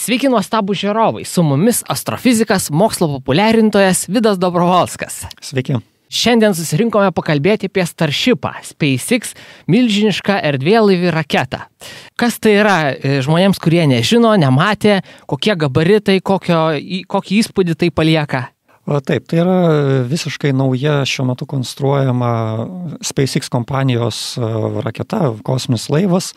Sveiki nuostabų žiūrovai, su mumis astrofizikas, mokslo populiarintojas Vidas Dobrovolskas. Sveiki. Šiandien susirinkome pakalbėti apie Starshipą, SpaceX milžinišką erdvėlaivį raketą. Kas tai yra žmonėms, kurie nežino, nematė, kokie gabaritai, kokį įspūdį tai palieka? Taip, tai yra visiškai nauja šiuo metu konstruojama SpaceX kompanijos raketa, kosminis laivas,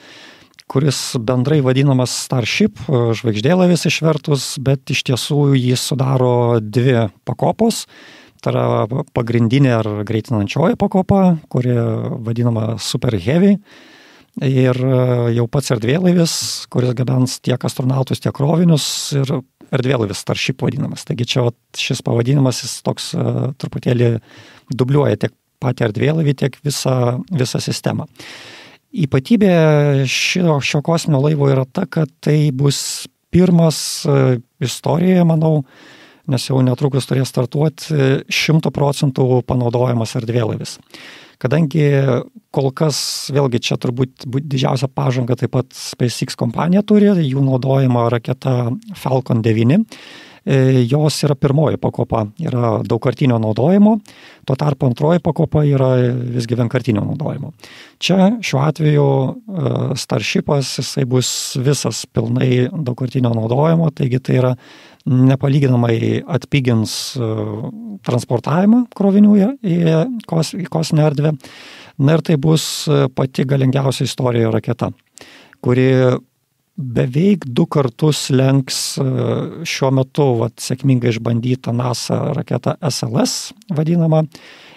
kuris bendrai vadinamas Starship, žvaigždėlaivis išvertus, bet iš tiesų jis sudaro dvi pakopos. Tai yra pagrindinė ar greitinančioji pakopa, kuri vadinama Super Heavy. Ir jau pats erdvėlaivis, kuris gabens tiek astronautus, tiek krovinius, ir erdvėlaivis Starship vadinamas. Taigi čia šis pavadinimas jis toks truputėlį dubliuoja tiek patį erdvėlaivį, tiek visą sistemą. Ypatybė šio kosminio laivo yra ta, kad tai bus pirmas istorijoje, manau, nes jau netrukus turės startuoti 100% panaudojamas erdvėlaivis. Kadangi kol kas, vėlgi čia turbūt didžiausia pažanga taip pat SpaceX kompanija turi, jų naudojama raketa Falcon 9. Jos yra pirmoji pakopa, yra daugkartinio naudojimo, tuo tarpu antroji pakopa yra visgi vienkartinio naudojimo. Čia šiuo atveju Starshipas, jisai bus visas pilnai daugkartinio naudojimo, taigi tai yra nepalyginamai atpigins transportavimą krovinių į kosminę erdvę. Na ir tai bus pati galingiausia istorijoje raketa, kuri beveik 2 kartus lenks šiuo metu sėkmingai išbandytą NASA raketą SLS vadinamą,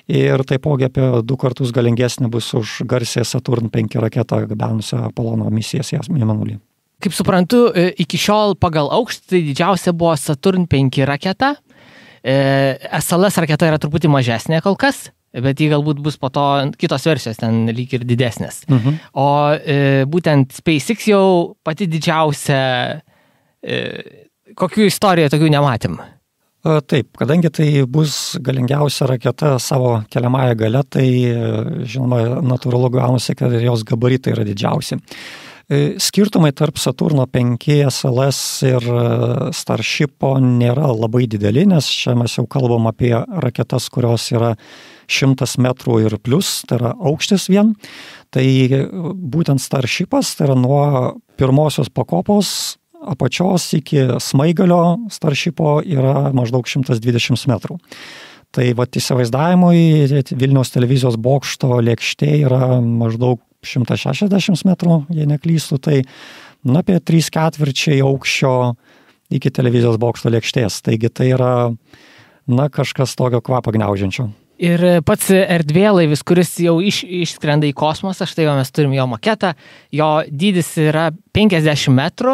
ir taipogi apie 2 kartus galingesnė bus už garsiąją Saturn 5 raketą gabenusią Apollo misijas į Mėnulį. Kaip suprantu, iki šiol pagal aukštį tai didžiausia buvo Saturn 5 raketa. SLS raketa yra truputį mažesnė kol kas, bet jį galbūt bus po to kitos versijos ten lyg ir didesnės. O būtent SpaceX jau pati didžiausia, kokių istorijų tokių nematėm? Taip, kadangi tai bus galingiausia raketa savo keliamąją gale, tai žinoma natūralu gaunasi, kad jos gabaritai yra didžiausi. Skirtumai tarp Saturno 5 SLS ir Starshipo nėra labai dideli, nes čia mes jau kalbam apie raketas, kurios yra 100 metrų ir plus, tai yra aukštis vien. Tai būtent Starshipas, tai yra nuo pirmosios pakopos apačios iki smaigalio Starshipo yra maždaug 120 metrų. Tai įsivaizdavimui Vilniaus televizijos bokšto lėkštė yra maždaug 160 metrų, jei neklystu, tai apie 3/4 aukščio iki televizijos bokšto lėkštės. Taigi tai yra kažkas tokio kvapą gniaužiančio. Ir pats erdvėlaivis, kuris jau išskrenda į kosmosą, štai mes turim jo maketą, jo dydis yra 50 metrų,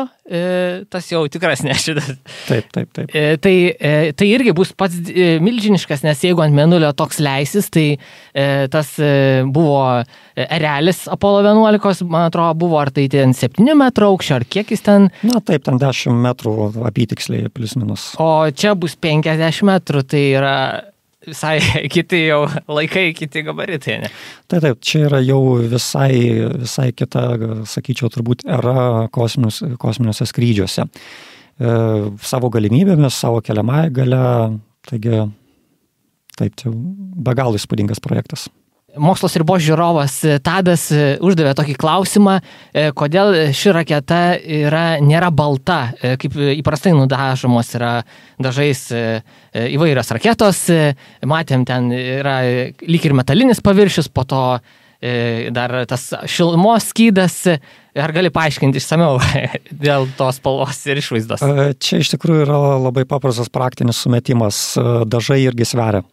tas jau tikras nešitas. Taip. Tai irgi bus pats milžiniškas, nes jeigu ant Mėnulio toks leisis, tai tas buvo erelis Apollo 11, man atrodo, buvo ar tai ten 7 metrų aukščio, ar kiek jis ten? Taip, ten 10 metrų apytiksliai, plius minus. O čia bus 50 metrų, tai yra visai kiti jau laikai, kiti gabaritai, ne? Taip, čia yra jau visai kita, sakyčiau, turbūt era kosminiuose skrydžiuose. Savo galimybėmis, savo keliamąją gale, taigi taip, tai be galo įspūdingas projektas. Mokslo ribos žiūrovas Tadas uždavė tokį klausimą, kodėl ši raketa nėra balta, kaip įprastai nudažomos yra dažais įvairios raketos. Matėm, ten yra lyg ir metalinis paviršius, po to dar tas šilumos skydas. Ar gali paaiškinti išsamiau dėl tos spalvos ir išvaizdos? Čia iš tikrųjų yra labai paprastas praktinis sumetimas. Dažai irgi sveria.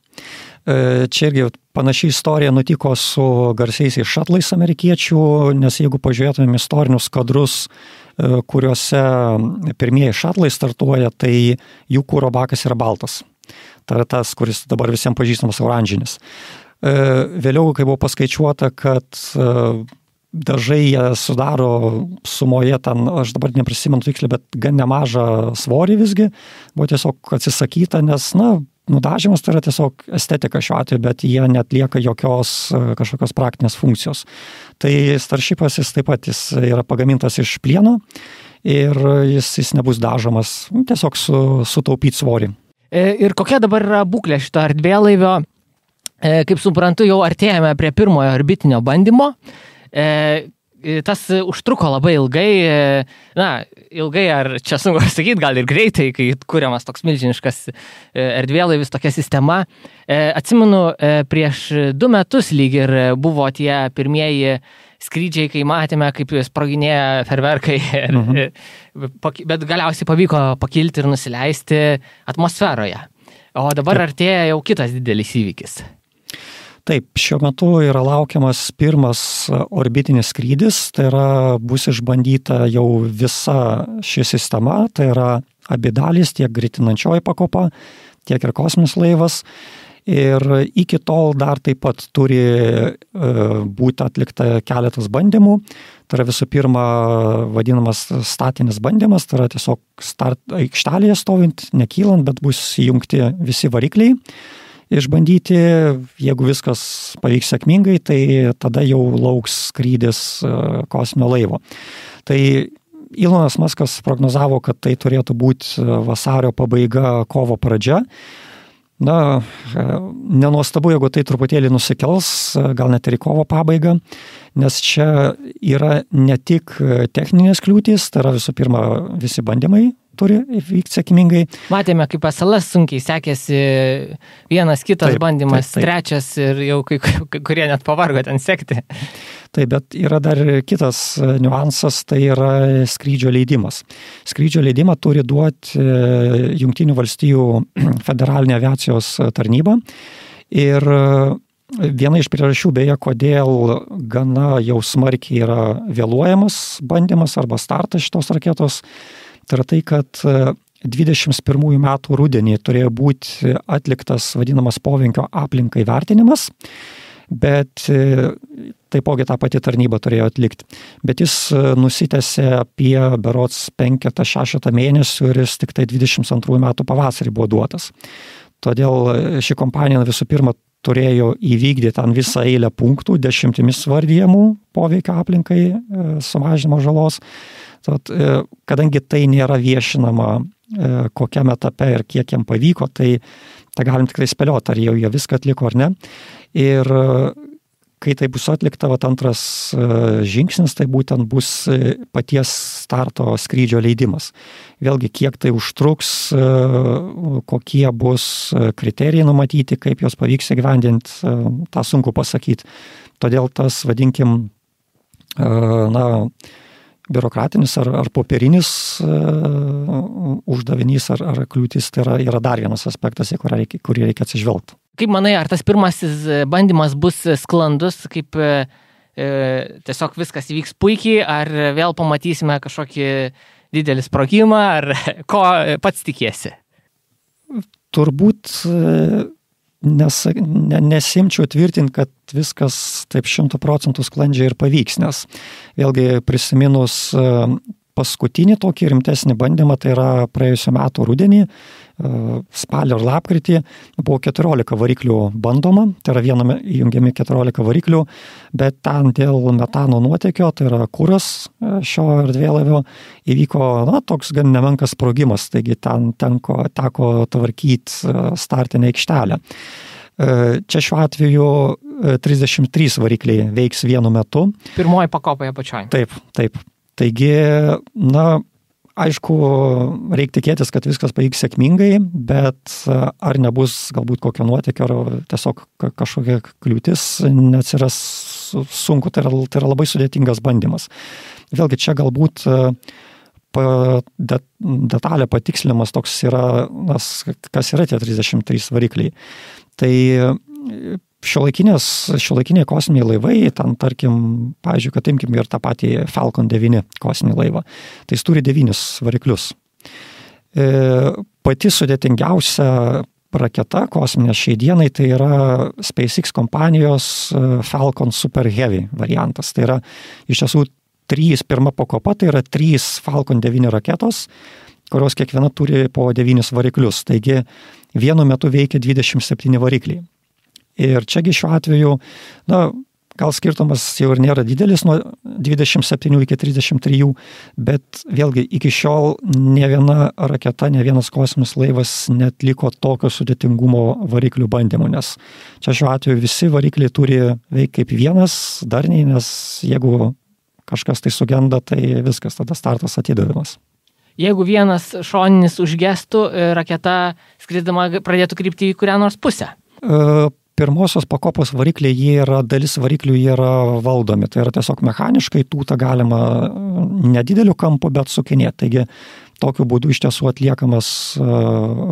Čia irgi panaši istorija nutiko su garsiaisiais šatlais amerikiečių, nes jeigu pažiūrėtumėm istorinius kadrus, kuriuose pirmieji šatlai startuoja, tai jų kuro bakas yra baltas. Tai yra tas, kuris dabar visiems pažįstamas oranžinis. Vėliau, kai buvo paskaičiuota, kad dažai sudaro sumoje ten, aš dabar neprisimenu tiksliai, bet gan nemažą svorį visgi, buvo tiesiog atsisakyta, nes, nudažymas tai yra tiesiog estetika šiuo atveju, bet jie netlieka jokios kažkokios praktinės funkcijos. Tai Starshipas jis taip pat jis yra pagamintas iš plieno ir jis nebus dažomas, tiesiog sutaupyti svorį. Ir kokia dabar yra būklė šito erdvėlaivio? Kaip suprantu, jau artėjame prie pirmojo orbitinio bandymo. Tas užtruko labai ilgai, ilgai ar čia sunku sakyti, gal ir greitai, kai kuriamas toks milžiniškas erdvėlaivis, tokia sistema. Atsimenu, prieš 2 metus lyg ir buvo tie pirmieji skrydžiai, kai matėme, kaip sproginėja ferverkai, bet galiausiai pavyko pakilti ir nusileisti atmosferoje. O dabar artėja jau kitas didelis įvykis. Taip, šiuo metu yra laukiamas pirmas orbitinis skrydis, tai yra bus išbandyta jau visa ši sistema, tai yra abi dalys, tiek greitinančioji pakopa, tiek ir kosminis laivas. Ir iki tol dar taip pat turi būti atlikta keletas bandymų. Tai yra visų pirma vadinamas statinis bandymas, tai yra tiesiog aikštelėje stovint, nekylant, bet bus įjungti visi varikliai. Išbandyti, jeigu viskas pavyks sėkmingai, tai tada jau lauks skrydis kosminio laivo. Tai Elonas Muskas prognozavo, kad tai turėtų būti vasario pabaiga, kovo pradžia. Nenuostabu, jeigu tai truputėlį nusikels, gal net ir į kovo pabaigą, nes čia yra ne tik techninės kliūtys, tai yra visų pirma visi bandymai turi vykti sėkmingai. Matėme, kaip SLS sunkiai sekėsi vienas kitas bandymas, trečias ir jau kai kurie net pavargo ten sekti. Taip, bet yra dar kitas niuansas, tai yra skrydžio leidimas. Skrydžio leidimą turi duoti Jungtinių valstijų federalinė aviacijos tarnyba ir viena iš priežasčių beje, kodėl gana jau smarkiai yra vėluojamas bandymas arba startas šitos raketos, tai yra tai, kad 21 metų rudenį turėjo būti atliktas vadinamas poveikio aplinkai vertinimas, bet taipogi tą patį tarnybą turėjo atlikti. Bet jis nusitęsė apie berods 5-6 mėnesių ir jis tik tai 22 metų pavasarį buvo duotas. Todėl ši kompanija visų pirma turėjo įvykdyti ten visą eilę punktų, 10 vardijamų poveikio aplinkai sumažinimo žalos. Tad, kadangi tai nėra viešinama kokiam etape ir kiek jam pavyko, tai galim tikrai spėlioti, ar jau jie viską atliko ar ne. Ir kai tai bus atlikta, antras žingsnis, tai būtent bus paties starto skrydžio leidimas. Vėlgi, kiek tai užtruks, kokie bus kriterijai numatyti, kaip jos pavyks įgyvendinti, tą sunku pasakyti. Todėl tas, vadinkim, biurokratinis ar popierinis uždavinys ar kliūtis, tai yra dar vienas aspektas, į kurį reikia atsižvelgti. Kaip manai, ar tas pirmasis bandymas bus sklandus, kaip tiesiog viskas įvyks puikiai, ar vėl pamatysime kažkokį didelį sprogimą, ar ko pats tikiesi? Turbūt nesimčiau tvirtinti, kad viskas taip 100% sklandžiai ir pavyks, nes vėlgi prisiminus paskutinį tokį rimtesnį bandymą, tai yra praėjusiu metu rudenį, spalio ir lapkritį, buvo 14 variklių bandoma, tai yra viename įjungiami 14 variklių, bet ten dėl metano nuotėkio, tai yra kuras šio erdvėlaivio, įvyko toks gan nemenkas sprogimas, taigi ten teko tvarkyti startinę aikštelę. Čia šiuo atveju 33 varikliai veiks vienu metu. Pirmoji pakopoje pačioj. Taip. Taigi, aišku, reikia tikėtis, kad viskas pavyks sėkmingai, bet ar nebus galbūt kokio nuotėkio, ar tiesiog kažkokia kliūtis neatsiras sunku, tai yra labai sudėtingas bandymas. Vėlgi čia galbūt detalė patikslinimas toks yra, kas yra tie 33 varikliai. Tai šiuolaikiniai kosminiai laivai, ten tarkim, pavyzdžiui, kad imkim ir tą patį Falcon 9 kosminį laivą, tai jis turi 9 variklius. Pati sudėtingiausia raketa kosminė šiai dienai, tai yra SpaceX kompanijos Falcon Super Heavy variantas. Tai yra iš tiesų pirma pakopa, tai yra 3 Falcon 9 raketos, kurios kiekviena turi po 9 variklius. Taigi vienu metu veikia 27 varikliai. Ir čiagi šiuo atveju, gal skirtumas jau ir nėra didelis nuo 27 iki 33, bet vėlgi iki šiol ne viena raketa, ne vienas kosminis laivas netliko tokio sudėtingumo variklių bandymų, nes čia šiuo atveju visi varikliai turi veikti kaip vienas darniai, nes jeigu kažkas tai sugenda, tai viskas, tada startas atidavimas. Jeigu vienas šoninis užgestų, raketa skridama pradėtų krypti į kurią nors pusę? Pirmosios pakopos varikliai, dalis variklių yra valdomi, tai yra tiesiog mechaniškai tūtą galima nedideliu kampu, bet sukinėti. Taigi tokiu būdu iš tiesų atliekamas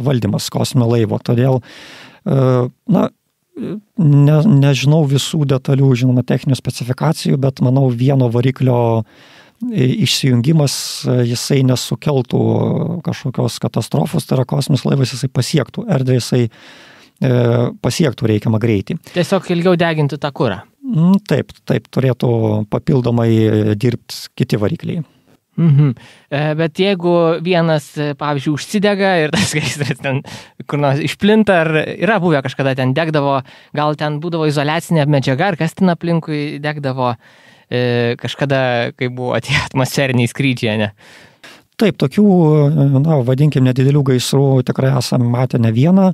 valdymas kosminio laivo. Todėl, nežinau visų detalių, žinoma, techninių specifikacijų, bet manau vieno variklio išsijungimas jisai nesukeltų kažkokios katastrofos, tai yra kosminis laivas jisai pasiektų erdvę, jisai pasiektų reikiamą greitį. Tiesiog ilgiau deginti tą kurą. Taip, turėtų papildomai dirbti kiti varikliai. Bet jeigu vienas, pavyzdžiui, užsidega ir tas gaisras ten kur nors išplinta, ar yra buvę kažkada ten degdavo, gal ten būdavo izoliacinė medžiaga, ar kas ten aplinkui degdavo kažkada, kai buvo tie atmosferiniai skrydžiai, ne? Taip, tokių, vadinkim, nedidelių gaisrų tikrai esame matę ne vieną,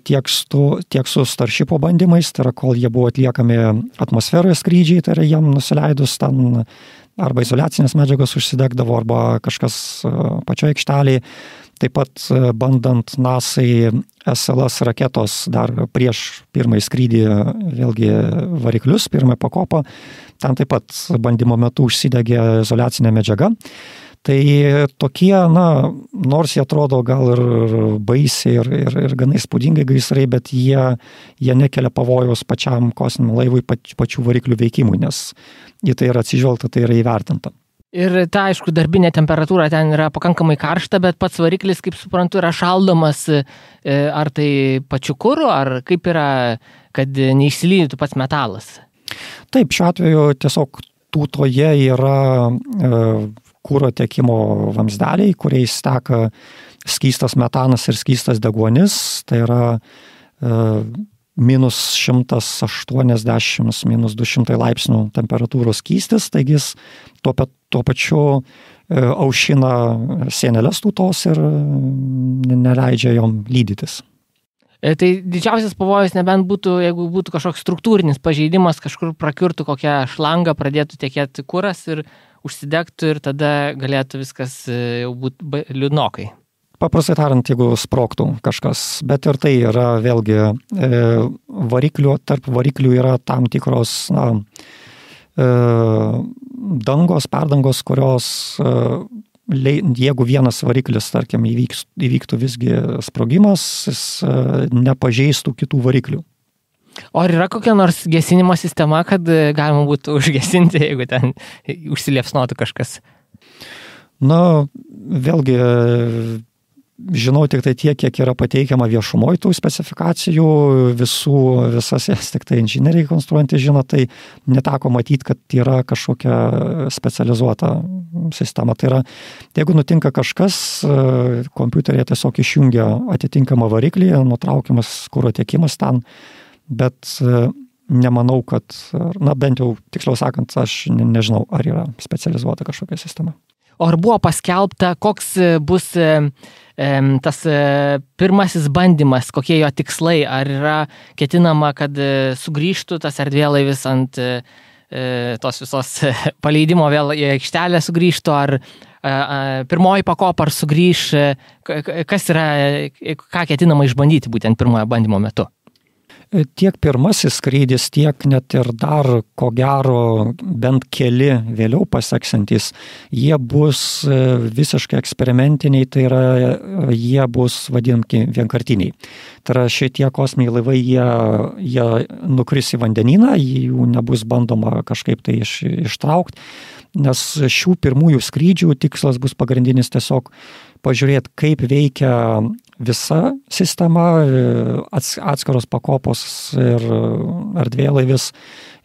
tiek su Starshipo bandymais, tai yra, kol jie buvo atliekami atmosferoje skrydžiai, tai yra jiem nusileidus ten arba izoliacinės medžiagos užsidegdavo, arba kažkas pačioje aikštelėje. Taip pat bandant NASA'ai SLS raketos dar prieš pirmąjį skrydį, vėlgi variklius, pirmąją pakopą, ten taip pat bandymo metu užsidegė izoliacinė medžiaga. Tai tokie, nors jie atrodo gal ir baisiai ir gana įspūdingai gaisrai, bet jie nekelia pavojaus pačiam kosminiam laivui, pačių variklių veikimui, nes į tai yra atsižvelgta, tai yra įvertinta. Ir ta, aišku, darbinė temperatūra ten yra pakankamai karšta, bet pats variklis, kaip suprantu, yra šaldomas, ar tai pačiu kuru, ar kaip yra, kad neišsilydytų pats metalas? Taip, šiuo atveju tiesiog tūtoje yra kuro tiekimo vamzdeliai, kuriais teka skystas metanas ir skystas deguonis, tai yra minus 180, minus 200 laipsnių temperatūros skystis, taigi jis tuo pačiu aušina sienelės tūtos ir neleidžia jom lydytis. Tai didžiausias pavojus nebent būtų, jeigu būtų kažkoks struktūrinis pažeidimas, kažkur prakiurtų kokią šlangą, pradėtų tekėti kuras ir užsidegtų ir tada galėtų viskas jau būti liūdnokai. Paprastai tariant, jeigu sprogtų kažkas, bet ir tai yra vėlgi tarp variklių yra tam tikros perdangos, kurios jeigu vienas variklis, tarkim, įvyktų visgi sprogimas, jis nepažeistų kitų variklių. O ar yra kokia nors gesinimo sistema, kad galima būtų užgesinti, jeigu ten užsiliepsnotų kažkas? Vėlgi, žinau tik tai tiek, kiek yra pateikiama viešumoje tų specifikacijų, visas jas tik tai inžinieriai konstruojantys žino, tai neteko matyti, kad yra kažkokia specializuota sistema. Tai yra, jeigu nutinka kažkas, kompiuterėje tiesiog išjungia atitinkamą variklį, nutraukiamas kuro tiekimas ten, bet nemanau, kad, bent jau tiksliau sakant, aš nežinau, ar yra specializuota kažkokia sistema. O ar buvo paskelbta, koks bus tas pirmasis bandymas, kokie jo tikslai, ar yra ketinama, kad sugrįžtų tas erdvėlaivis ant tos visos paleidimo vėl į aikštelę sugrįžtų, ar pirmoji pakopa ar sugrįž, kas yra, ką ketinama išbandyti būtent pirmojo bandymo metu? Tiek pirmasis skrydis, tiek net ir dar, ko gero, bent keli vėliau paseksantys, jie bus visiškai eksperimentiniai, tai yra, jie bus vadinami vienkartiniai. Tai yra, šitie kosminiai laivai, jie nukris į vandenyną, jų nebus bandoma kažkaip tai ištraukti, nes šių pirmųjų skrydžių tikslas bus pagrindinis tiesiog pažiūrėti, kaip veikia visa sistema, atskiros pakopos ir erdvėlaivis,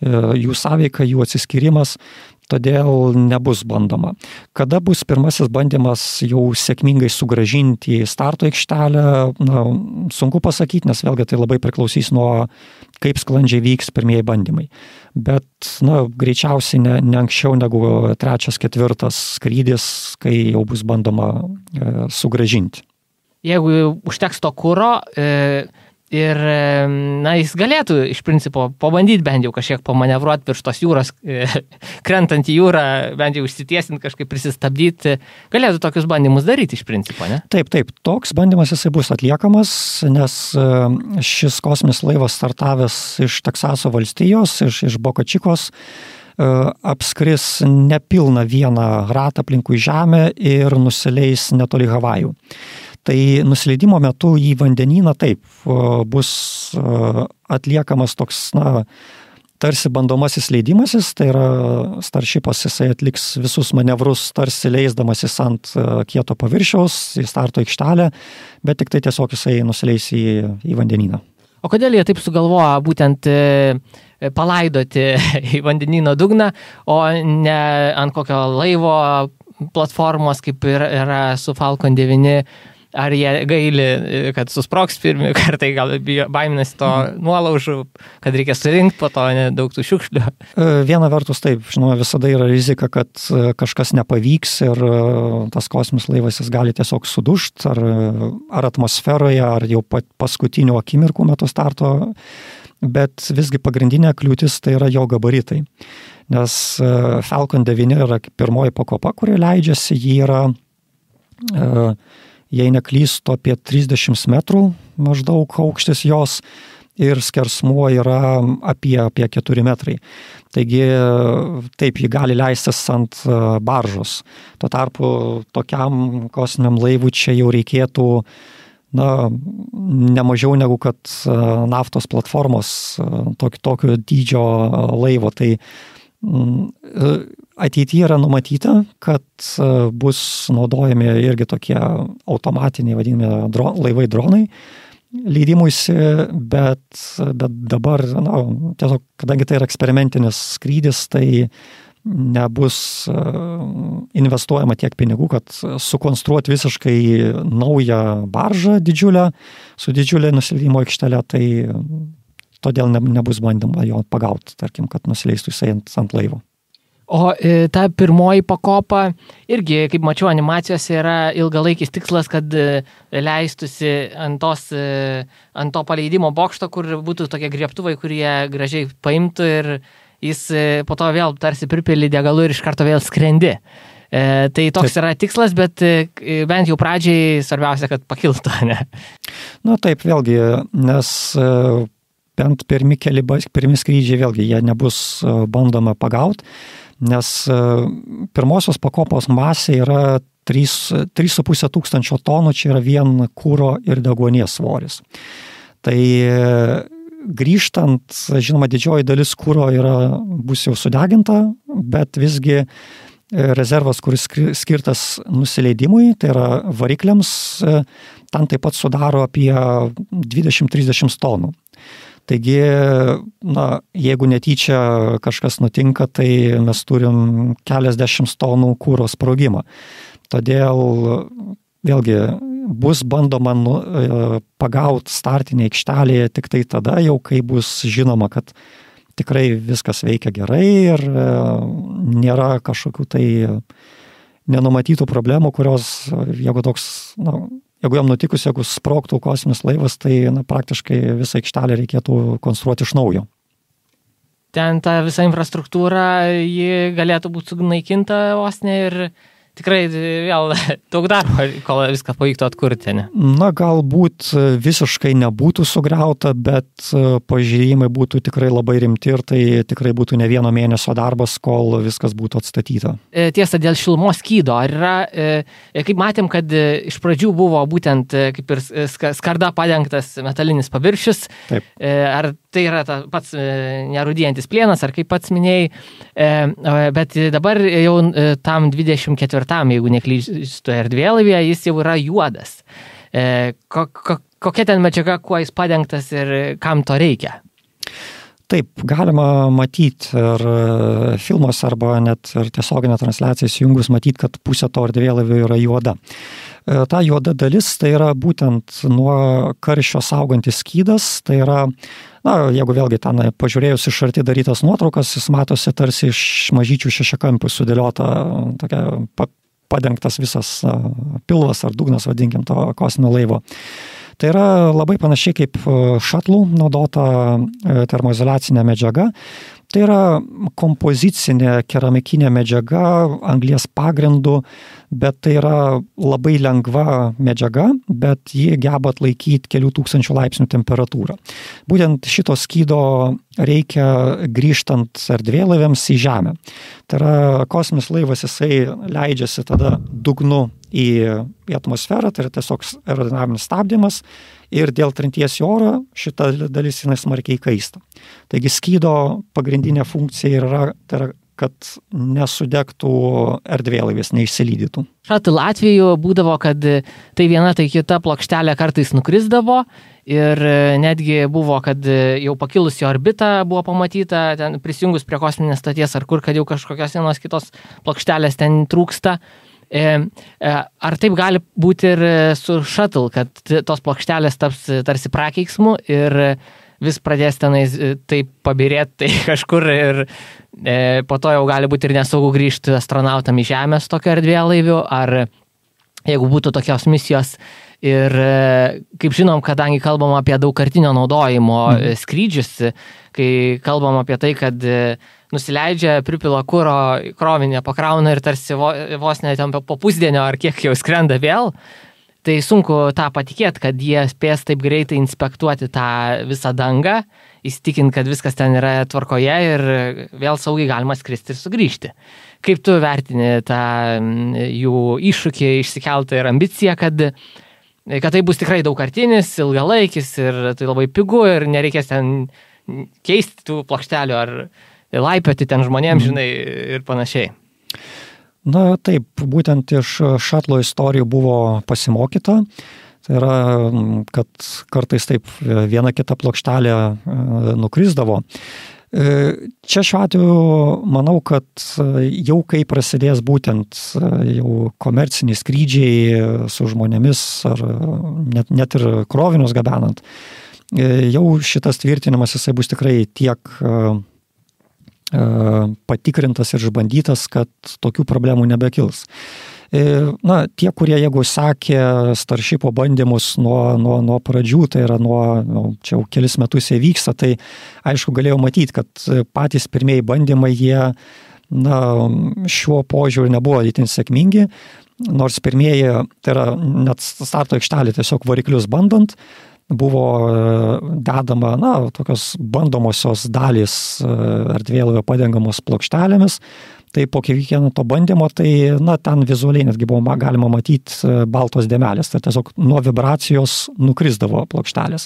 jų sąveika, jų atsiskyrimas. todėl nebus bandoma. Kada bus pirmasis bandymas jau sėkmingai sugrąžinti į starto aikštelę, sunku pasakyti, nes vėlgi tai labai priklausys nuo kaip sklandžiai vyks pirmieji bandymai. Bet greičiausiai ne anksčiau negu 3-4 skrydis, kai jau bus bandoma sugrąžinti. Jeigu užteks to kuro ir jis galėtų iš principo pabandyti bent jau kažkiek pamanevruoti virš tos jūros, krentant į jūrą, bent jau užsitiesinti, kažkaip prisistabdyti, galėtų tokius bandymus daryti iš principo, ne? Taip, toks bandymas jisai bus atliekamas, nes šis kosminis laivas startavęs iš Teksaso valstijos, iš Boca Chicos, apskris nepilną vieną ratą aplinkui Žemę ir nusileis netoli Havajų. Tai nusileidimo metu į vandenyną taip bus atliekamas toks, tarsi bandomasis leidimasis, tai yra Starshipas, jisai atliks visus manevrus, tarsi leisdamasis ant kieto paviršiaus į starto aikštelę, bet tik tai tiesiog jisai nusileis į vandenyną. O kodėl jie taip sugalvoja būtent palaidoti į vandenyno dugną, o ne ant kokio laivo platformos, kaip yra su Falcon 9, ar jie gaili, kad susprogs pirmi kartai, gal baiminasi to nuolaužų, kad reikia surinkti po to daug tų šiukšlių? Viena vertus taip, žinoma, visada yra rizika, kad kažkas nepavyks ir tas kosminis laivas jis gali tiesiog sudužti, ar atmosferoje, ar jau paskutinių akimirkų metu starto, bet visgi pagrindinė kliūtis tai yra jo gabaritai. Nes Falcon 9 yra pirmoji pakopa, kuri leidžiasi, ji yra jei neklystu, apie 30 metrų maždaug aukštis jos ir skersmuo yra apie 4 metrai. Taigi taip, ji gali leistis ant baržos. Tuo tarpu tokiam kosminiam laivui čia jau reikėtų ne mažiau negu kad naftos platformos tokio dydžio laivo. Tai ateityje yra numatyta, kad bus naudojami irgi tokie automatiniai vadinami laivai dronai leidimuisi, bet dabar, tiesiog, kadangi tai yra eksperimentinis skrydis, tai nebus investuojama tiek pinigų, kad sukonstruoti visiškai naują baržą didžiulę, su didžiulė nusileidimo aikštele, tai todėl nebus bandoma jo pagauti, tarkim, kad nusileistų jisai ant laivo. O ta pirmoji pakopa irgi, kaip mačiau animacijose, yra ilgalaikis tikslas, kad leistusi ant to paleidimo bokšto, kur būtų tokie griebtuvai, kurie gražiai paimtų ir jis po to vėl tarsi pripili degalų ir iš karto vėl skrendi. Tai toks yra tikslas, bet bent jau pradžiai svarbiausia, kad pakiltų, ne? Taip, vėlgi, nes bent pirmi skrydžiai vėlgi jie nebus bandoma pagauti, nes pirmosios pakopos masė yra 3,5 tūkstančio tonų, čia yra vien kuro ir deguonies svoris. Tai grįžtant, žinoma, didžioji dalis kuro bus jau sudeginta, bet visgi rezervas, kuris skirtas nusileidimui, tai yra varikliams, ten taip pat sudaro apie 20-30 tonų. Taigi, jeigu netyčia kažkas nutinka, tai mes turim keliasdešimt tonų kuro sprogimą. Todėl, vėlgi, bus bandoma pagauti startinį aikštelėje tik tai tada, jau kai bus žinoma, kad tikrai viskas veikia gerai ir nėra kažkokių tai nenumatytų problemų, kurios, jeigu jam nutikus, jeigu sprogtų kosminis laivas, tai praktiškai visą aikštelę reikėtų konstruoti iš naujo. Ten ta visa infrastruktūra, ji galėtų būti sunaikinta vos ne ir tikrai vėl daug darbo, kol viską pavyktų atkurti, ne? Galbūt visiškai nebūtų sugriauta, bet pažeidimai būtų tikrai labai rimti ir tai tikrai būtų ne vieno mėnesio darbas, kol viskas būtų atstatyta. Tiesa, dėl šilumos skydo, ar yra, kaip matėm, kad iš pradžių buvo būtent kaip ir skarda padengtas metalinis paviršius, taip. Ar tai yra pats nerūdijantis plienas, ar kaip pats minėjai, bet dabar jau tam 24, jeigu neklystu erdvėlaivyje, jis jau yra juodas. Kokia ten medžiaga, kuo jis padengtas ir kam to reikia? Taip, galima matyti ir filmuose arba net ir tiesioginę transliaciją įsijungus matyti, kad pusė to erdvėlaivio yra juoda. Ta juoda dalis tai yra būtent nuo karščio saugantis skydas, tai yra, jeigu vėlgi ten pažiūrėjus iš arti darytas nuotraukas, jis matosi tarsi iš mažyčių šešiakampių sudėliota, tokia padengtas visas pilvas ar dugnas, vadinkim, to kosminio laivo. Tai yra labai panašiai kaip šatlų naudota termoizoliacinė medžiaga. Tai yra kompozicinė keramikinė medžiaga, anglies pagrindu, bet tai yra labai lengva medžiaga, bet ji geba atlaikyti kelių tūkstančių laipsnių temperatūrą. Būtent šito skydo reikia grįžtant erdvėlaiviams į Žemę. Tai yra kosminis laivas, jisai leidžiasi tada dugnu į atmosferą, tai yra tiesiog aerodinaminis stabdymas ir dėl trinties į orą šita dalis jinai smarkiai kaista. Taigi skydo pagrindinė funkcija yra, tai yra, kad nesudegtų erdvėlaivis, neišsilydytų. Šatul atveju būdavo, kad tai viena, tai kita plokštelė kartais nukrisdavo ir netgi buvo, kad jau pakilus į orbitą buvo pamatyta, ten prisijungus prie kosminės stoties ar kur, kad jau kažkokios vienos kitos plokštelės ten trūksta. Ar taip gali būti ir su Shuttle, kad tos plokštelės taps tarsi prakeiksmu ir vis pradės tenais taip pabirėti tai kažkur ir po to jau gali būti ir nesaugu grįžti astronautam į Žemės tokio erdvėlaiviu, ar jeigu būtų tokios misijos ir, kaip žinom, kadangi kalbam apie daugkartinio naudojimo skrydžius, kai kalbam apie tai, kad nusileidžia, pripila kuro, krovinę pakrauna ir tarsi vos net po pusdienio ar kiek jau skrenda vėl, tai sunku tą patikėti, kad jie spės taip greitai inspektuoti tą visą dangą, įsitikinti, kad viskas ten yra tvarkoje ir vėl saugiai galima skristi ir sugrįžti. Kaip tu vertini tą jų iššūkį išsikeltą ir ambiciją, kad tai bus tikrai daugkartinis, ilgalaikis ir tai labai pigu ir nereikės ten keisti tų plokštelių ar laipioti ten žmonėms, žinai, ir panašiai. Na taip, būtent iš šatlo istorijų buvo pasimokyta. Tai yra, kad kartais taip viena kita plokštelė nukrisdavo. Čia šiuo atveju manau, kad jau kai prasidės būtent jau komerciniai skrydžiai su žmonėmis ar net ir krovinius gabenant, jau šitas tvirtinimas jisai bus tikrai tiek patikrintas ir išbandytas, kad tokių problemų nebekils. Na, tie, kurie jeigu sekė Starshipo bandymus nuo pradžių, tai yra čia jau kelis metus jie vyksta, tai aišku galėjau matyti, kad patys pirmieji bandymai jie šiuo požiūriu nebuvo itin sėkmingi, nors pirmieji, tai yra net starto aikštelė tiesiog variklius bandant, buvo dedama, tokios bandomosios dalys erdvėlaivio padengamos plokštelėmis. Tai po kiekvieno to bandymo, tai ten vizualiai netgi buvo galima matyti baltos dėmelės, tai tiesiog nuo vibracijos nukrisdavo plokštelės.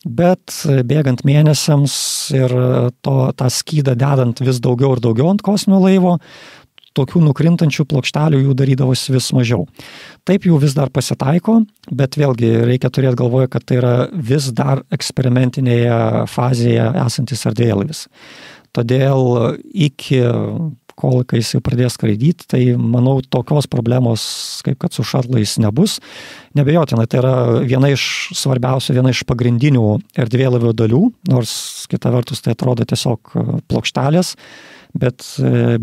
Bet bėgant mėnesiams ir tą skydą dedant vis daugiau ir daugiau ant kosminio laivo, tokių nukrintančių plokštelių jų darydavosi vis mažiau. Taip jų vis dar pasitaiko, bet vėlgi reikia turėti galvoje, kad tai yra vis dar eksperimentinėje fazėje esantis erdvėlaivis. Todėl iki kol kai jis jau pradės skraidyti, tai manau tokios problemos, kaip kad su šatlais nebus. Nebejotinai, tai yra viena iš svarbiausių, viena iš pagrindinių erdvėlaivio dalių, nors kita vertus tai atrodo tiesiog plokštelės, bet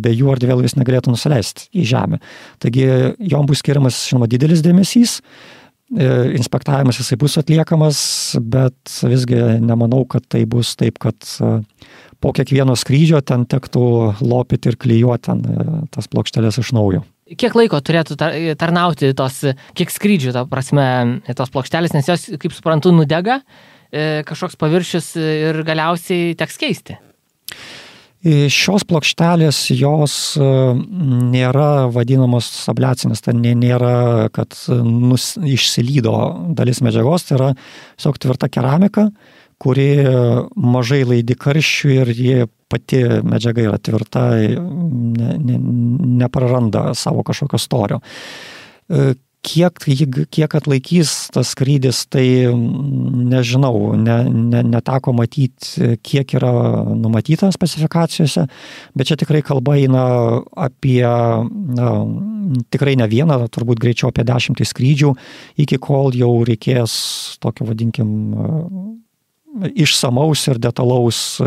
be jų erdvėlaivis negalėtų nusileisti į Žemę. Taigi jom bus skiriamas, žinoma, didelis dėmesys, inspektavimas jisai bus atliekamas, bet visgi nemanau, kad tai bus taip, kad po kiekvieno skrydžio ten tektų lopyti ir klijuoti ten tas plokštelės iš naujo. Kiek laiko turėtų tarnauti kiek skrydžių, ta prasme, tos plokštelės, nes jos, kaip suprantu, nudega, kažkoks paviršius ir galiausiai teks keisti? Šios plokštelės, jos nėra vadinamos abliacinės, tai nėra, kad išsilydo dalis medžiagos, tai yra tiesiog tvirta keramika, kuri mažai laidi karščių ir ji pati medžiaga yra tvirta, nepraranda savo kažkokio storio. Kiek atlaikys tas skrydis, tai nežinau, neteko matyti, kiek yra numatyta specifikacijose, bet čia tikrai kalba eina apie, tikrai ne vieną, turbūt greičiau apie 10 skrydžių, iki kol jau reikės tokio, vadinkim, išsamaus ir detalaus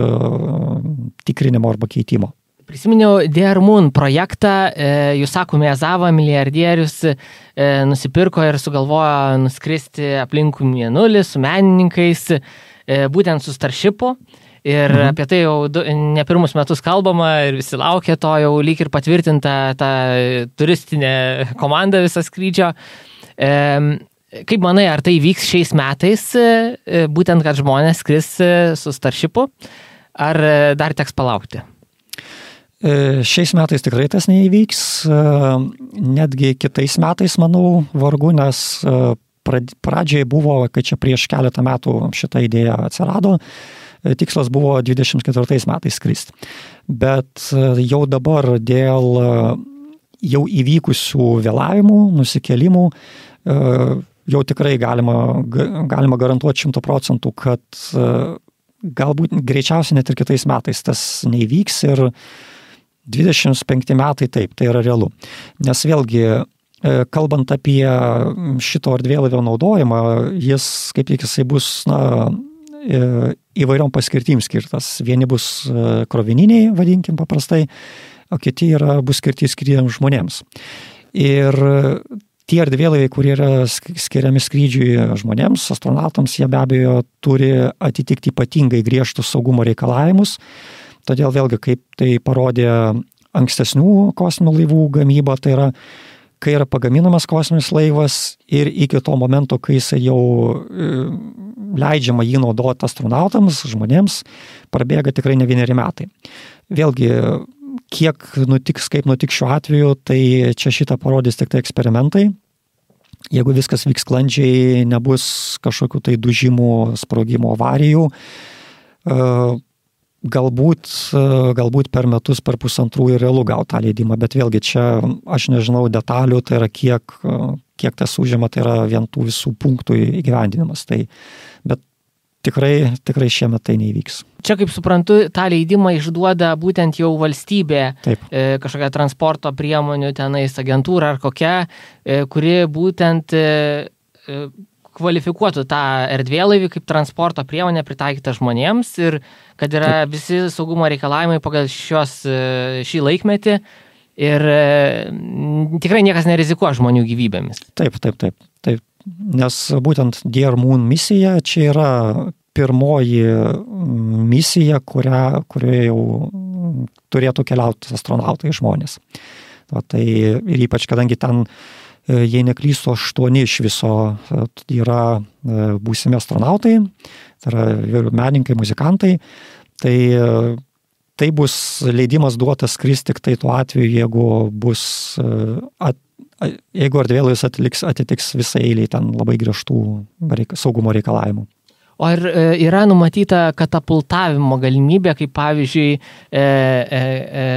tikrinimo arba keitimo. Prisiminiau DR Moon projektą, Yusaku Maezawa, milijardierius, nusipirko ir sugalvojo nuskristi aplinkui Mėnulį su menininkais, būtent su Starshipu. Ir apie tai jau ne pirmus metus kalbama ir visi laukia to, jau lyg ir patvirtinta ta turistinė komanda viso skrydžio. Kaip manai, ar tai vyks šiais metais, būtent kad žmonės skris su Starshipu, ar dar teks palaukti? Šiais metais tikrai tas neįvyks, netgi kitais metais, manau, vargu, nes pradžiai buvo, kai čia prieš keletą metų šita idėja atsirado, tikslas buvo 24 metais skristi. Bet jau dabar dėl jau įvykusių vėlavimų, nusikelimų, jau tikrai galima garantuoti 100%, kad galbūt greičiausiai net ir kitais metais tas neįvyks ir 25 metai taip, tai yra realu. Nes vėlgi, kalbant apie šito erdvėlaivio naudojimą, kaip tik jisai bus įvairiom paskirtim skirtas. Vieni bus krovininiai, vadinkim paprastai, o kiti bus skirti skrydžiams žmonėms. Ir tie erdvėlaiviai, kurie yra skiriami skrydžiui žmonėms, astronautams, jie be abejo turi atitikti ypatingai griežtus saugumo reikalavimus. Todėl vėlgi, kaip tai parodė ankstesnių kosminių laivų gamyba, tai yra, kai yra pagaminamas kosminis laivas ir iki to momento, kai jis jau leidžiama jį naudoti astronautams, žmonėms, prabėga tikrai ne 1 metai. Vėlgi, kiek nutiks, kaip nutiks šiuo atveju, tai čia šitą parodys tik tai eksperimentai. Jeigu viskas vyks sklandžiai, nebus kažkokių tai dužimų, sprogimo, avarijų, galbūt per metus, per 1,5 ir realu gauti tą leidimą, bet vėlgi čia aš nežinau detalių, tai yra kiek tas užima, tai yra vien tų visų punktų įgyvendinimas. Bet tikrai šiemet tai neįvyks. Čia, kaip suprantu, tą leidimą išduoda būtent jau valstybė, kažkokia transporto priemonių tenais agentūra ar kokia, kuri būtent kvalifikuotų tą erdvėlaivį kaip transporto priemonę pritaikytą žmonėms ir kad yra visi saugumo reikalavimai pagal šį laikmetį ir tikrai niekas nerizikuoja žmonių gyvybėmis. Taip. Nes būtent DR Moon misija čia yra pirmoji misija, kurioje jau turėtų keliauti astronautai žmonės. Tai ir ypač, kadangi ten, jei neklystu, 8 iš viso yra būsimi astronautai, tai yra menininkai, muzikantai, tai bus leidimas duotas skristi tik tai tuo atveju, jeigu erdvėlaivis atitiks visą eilę ten labai griežtų saugumo reikalavimų. O ar yra numatyta katapultavimo galimybė, kaip pavyzdžiui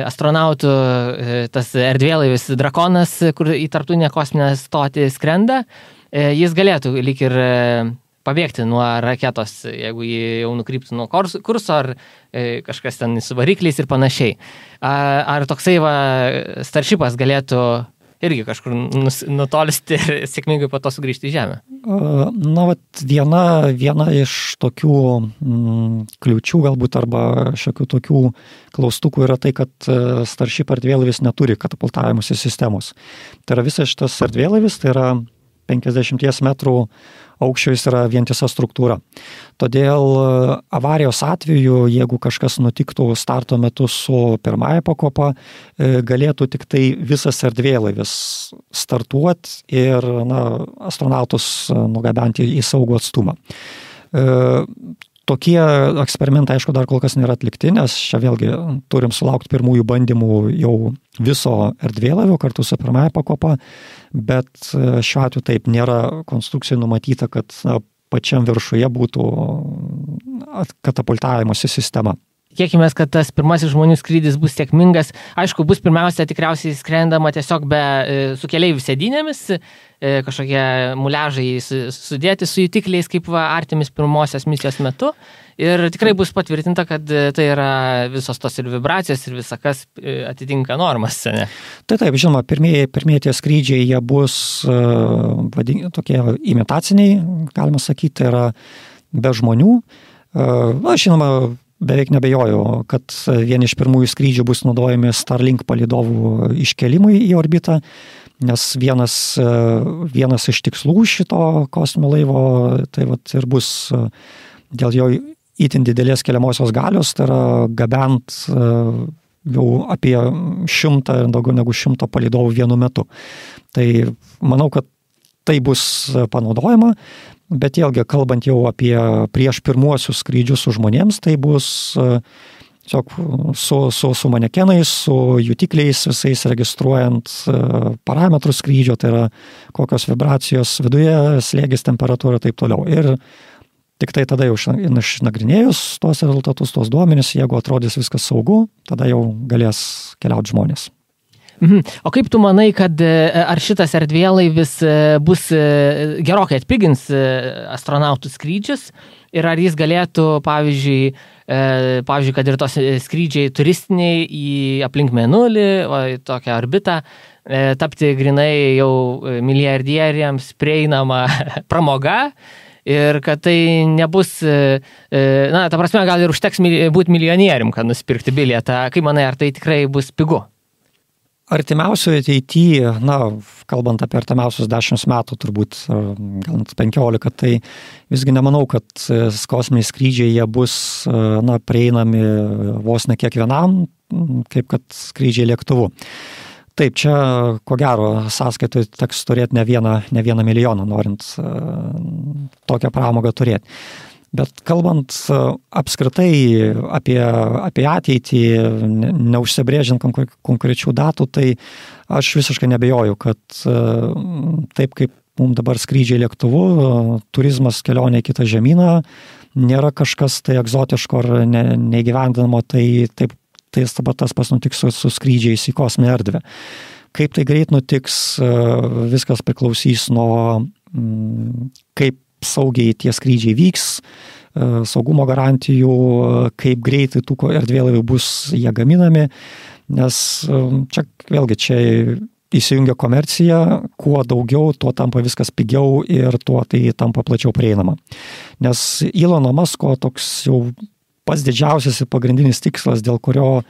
astronautų tas erdvėlaivis Drakonas, kur į tarptautinę kosminę stotį skrenda, jis galėtų lyg ir pabėgti nuo raketos, jeigu jį jau nukryptų nuo kurso ar kažkas ten su varikliais ir panašiai. Ar toksai Starshipas galėtų irgi kažkur nutolisti ir sėkmingai po to sugrįžti į Žemę? Viena iš tokių kliūčių galbūt arba šiokių tokių klaustukų yra tai, kad Starship erdvėlaivis neturi katapultavimosi sistemos. Tai yra visas šitas erdvėlaivis, tai yra 50 metrų aukščio, jis yra vientisa struktūra. Todėl avarijos atveju, jeigu kažkas nutiktų starto metu su pirmąja pakopa, galėtų tik tai visas erdvėlaivis startuoti ir astronautus nugabenti į saugų atstumą. Tokie eksperimentai, aišku, dar kol kas nėra atlikti, nes čia vėlgi turim sulaukti pirmųjų bandymų jau viso erdvėlaivio kartu su pirmąja pakopa, bet šiuo atveju taip nėra konstrukcijai numatyta, kad pačiam viršuje būtų katapultavimosi sistema. tikėkime, kad tas pirmasis žmonių skrydis bus sėkmingas. Aišku, bus pirmiausia tikriausiai skrendama tiesiog su keleivių sėdynėmis, kažkokie muliažai sudėti su jutikliais, kaip Artemis pirmosios misijos metu. Ir tikrai bus patvirtinta, kad tai yra visos tos ir vibracijos, ir visa kas atitinka normas. Ne? Taip, žinoma, pirmieji tie skrydžiai, jie bus tokie imitaciniai, galima sakyti, tai yra be žmonių. Žinoma, beveik nebejoju, kad vieni iš pirmųjų skrydžių bus naudojami Starlink palydovų iškelimui į orbitą, nes vienas iš tikslų šito kosminio laivo tai ir bus dėl jo itin didelės keliamosios galios, tai yra gabent jau apie 100 ir daugiau negu 100 palydovų vienu metu. Tai manau, kad tai bus panaudojama, bet vėlgi kalbant jau apie prieš pirmuosius skrydžius su žmonėms, tai bus su manekenais, su jutikliais visais registruojant parametrus skrydžio, tai yra kokios vibracijos viduje, slėgis, temperatūra ir taip toliau. Ir tik tai tada jau išnagrinėjus tuos rezultatus, tuos duomenis, jeigu atrodys viskas saugu, tada jau galės keliauti žmonės. O kaip tu manai, kad ar šitas erdvėlaivis bus gerokai atpigins astronautų skrydžius ir ar jis galėtų, pavyzdžiui, kad ir tos skrydžiai turistiniai į aplink Mėnulį, tokią orbitą, tapti grinai jau milijardieriams prieinama pramoga ir kad tai nebus, ta prasme, gal ir užteks būti milijonierium, kad nusipirkti bilietą. Kaip manai, ar tai tikrai bus pigu? Artimiausioje ateityje, kalbant apie artimiausius 10 metų, turbūt gal net 15, tai visgi nemanau, kad kosminiai skrydžiai jie bus prieinami vos ne kiekvienam, kaip kad skrydžiai lėktuvu. Taip, čia ko gero sąskaitoj teks turėti ne vieną milijoną, norint tokią pramogą turėti. Bet kalbant apskritai apie ateitį, neužsibrėžiant konkrečių datų, tai aš visiškai nebejoju, kad taip kaip mums dabar skrydžiai lėktuvu, turizmas kelionė į kitą žemyną nėra kažkas tai egzotiško ar neįgyvendinamo, tai tas pas nutiks su skrydžiais į kosminę erdvę. Kaip tai greit nutiks, viskas priklausys nuo kaip saugiai tie skrydžiai vyks, saugumo garantijų, kaip greitai tų erdvėlaivių bus jie gaminami, nes čia įsijungia komercija, kuo daugiau, tuo tampa viskas pigiau ir tuo tai tampa plačiau prieinama. Nes Elono Musko toks jau pats didžiausias ir pagrindinis tikslas, dėl kurio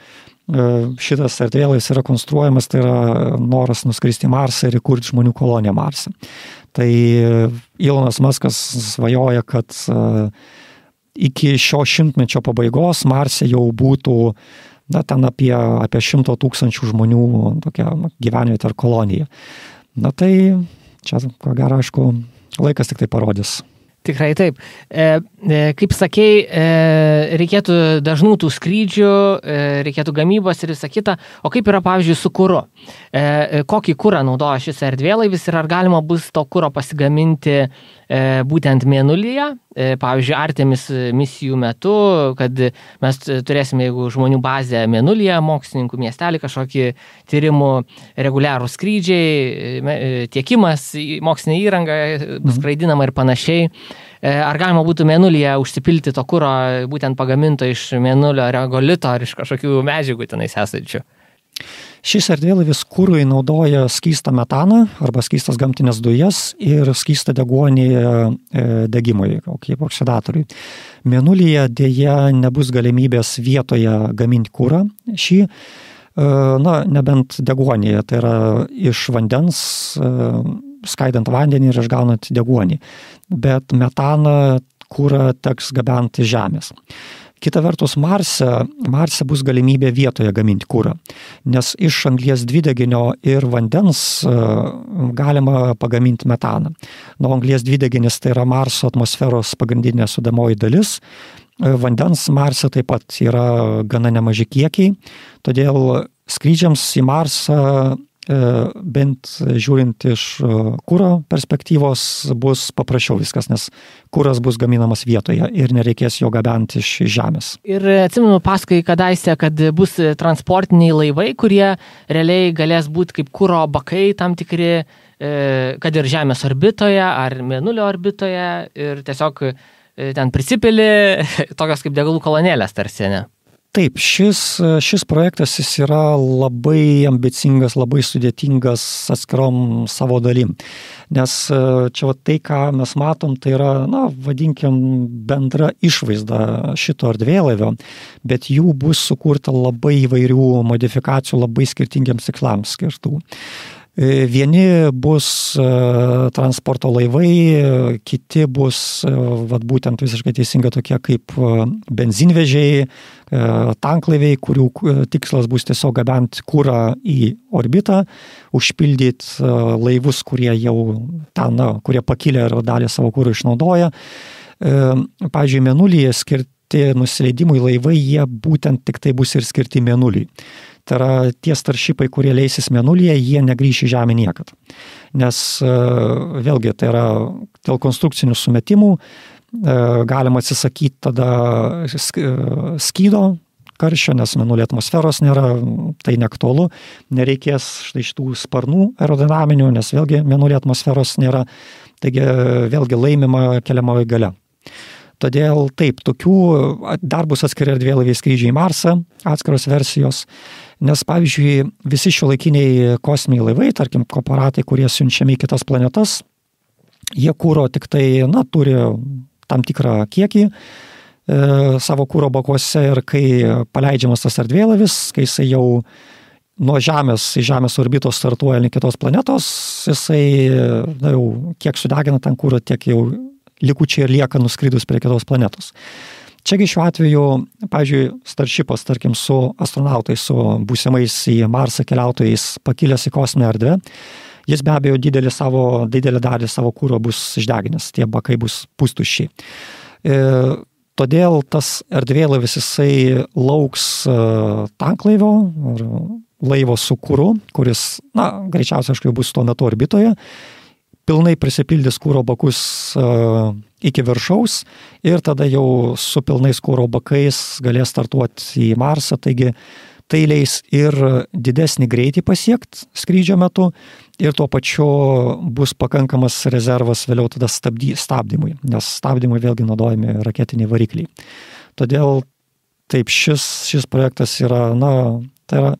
šitas erdvėlaivis yra konstruojamas, tai yra noras nuskristi į Marsą ir įkurti žmonių koloniją Marse. Tai Elonas Muskas svajoja, kad iki šio šimtmečio pabaigos Marse jau būtų ten apie 100 000 žmonių tokia gyvenvietė ar kolonija. Tai čia, ko gero, aišku, laikas tik tai parodys. Tikrai taip. Kaip sakei, reikėtų dažnų tų skrydžių, reikėtų gamybos ir visą kitą. O kaip yra, pavyzdžiui, su kuru? Kokį kurą naudoja šis erdvėlaivis ir ar galima bus to kuro pasigaminti būtent Mėnulyje? Pavyzdžiui, Artemis misijų metu, kad mes turėsime, jeigu žmonių bazę Mėnulyje, mokslininkų miestelį, kažkokį tyrimų reguliarų skrydžiai, tiekimas, mokslinė įranga, skraidinama ir panašiai. Ar galima būtų Mėnulyje užsipilti to kuro būtent pagaminto iš Mėnulio regolito ar iš kažkokių medžiagų tenais esančių? Šis erdvėlaivis kurui naudoja skystą metaną arba skystas gamtinės dujas ir skystą deguonį degimui, kaip oksidatoriui. Mėnulyje dėja nebus galimybės vietoje gaminti kurą šį, nebent deguonį, tai yra iš vandens, skaidant vandenį ir išgaunant deguonį. Bet metaną kurą teks gabenti iš Žemės. Kita vertus, Marse bus galimybė vietoje gaminti kurą, nes iš anglies dvideginio ir vandens galima pagaminti metaną. Anglies dvideginis tai yra Marso atmosferos pagrindinė sudedamoji dalis, vandens Marse taip pat yra gana nemaži kiekiai, todėl skrydžiams į Marsą bent žiūrint iš kuro perspektyvos bus paprasčiau viskas, nes kuras bus gaminamas vietoje ir nereikės jo gabenti iš žemės. Ir atsimenu paskui kadaise, kad bus transportiniai laivai, kurie realiai galės būti kaip kuro bakai tam tikri, kad ir Žemės orbitoje ar Mėnulio orbitoje ir tiesiog ten prisipili tokios kaip degalų kolonėlės tarsi, ne? Taip, šis projektas jis yra labai ambicingas, labai sudėtingas atskirom savo dalim. Nes čia tai, ką mes matom, tai yra, vadinkim, bendra išvaizda šito erdvėlaivio, bet jų bus sukurta labai įvairių modifikacijų, labai skirtingiams tikslams skirtų. Vieni bus transporto laivai, kiti bus būtent visiškai teisinga tokie kaip benzinvežiai, tanklaiviai, kurių tikslas bus tiesiog gabenti kurą į orbitą, užpildyti laivus, kurie jau ten, kurie pakilę ir dalį savo kuro išnaudoja. Pavyzdžiui, Mėnulyje skirti nusileidimui laivai, jie būtent tik tai bus ir skirti Mėnuliui. Tai yra tie starshipai, kurie leisis Mėnulyje, jie negrįš į Žemę niekad. Nes vėlgi tai yra dėl konstrukcinių sumetimų galima atsisakyti tada skydo karščio, nes Mėnulio atmosferos nėra, tai neaktualu. Nereikės štai šitų sparnų aerodinaminių, nes vėlgi Mėnulio atmosferos nėra. Taigi vėlgi laimima keliamoji galia. Todėl taip, tokių dar bus atskiri erdvėlaiviai skrydžiai į Marsą, atskiros versijos, nes pavyzdžiui visi šiuolaikiniai kosminiai laivai, tarkim korporatai, kurie siunčiami į kitas planetas, jie kuro tik tai, turi tam tikrą kiekį savo kuro bakuose ir kai paleidžiamas tas erdvėlaivis, kai jisai jau nuo Žemės į Žemės orbitos startuoja link kitos planetos, jisai jau kiek sudegina ten kuro, tiek jau likučiai ir lieka nuskridus prie kitos planetos. Čiagi šiuo atveju, pavyzdžiui, starshipas, tarkim, su astronautais, su būsimais į Marsą keliautojais pakilęs į kosminę erdvę, jis be abejo didelę dalį savo kuro bus išdeginęs, tie bakai bus pustuščiai. Todėl tas erdvėlaivis jisai lauks tanklaivio ar laivo su kuru, kuris, greičiausiai aišku bus tuo metu orbitoje, pilnai prisipildys kuro bakus iki viršaus ir tada jau su pilnais kuro bakais galės startuoti į Marsą, taigi tai leis ir didesnį greitį pasiekti skrydžio metu ir tuo pačiu bus pakankamas rezervas vėliau tada stabdymui, nes stabdymui vėlgi naudojami raketiniai varikliai. Todėl taip šis projektas yra, tai yra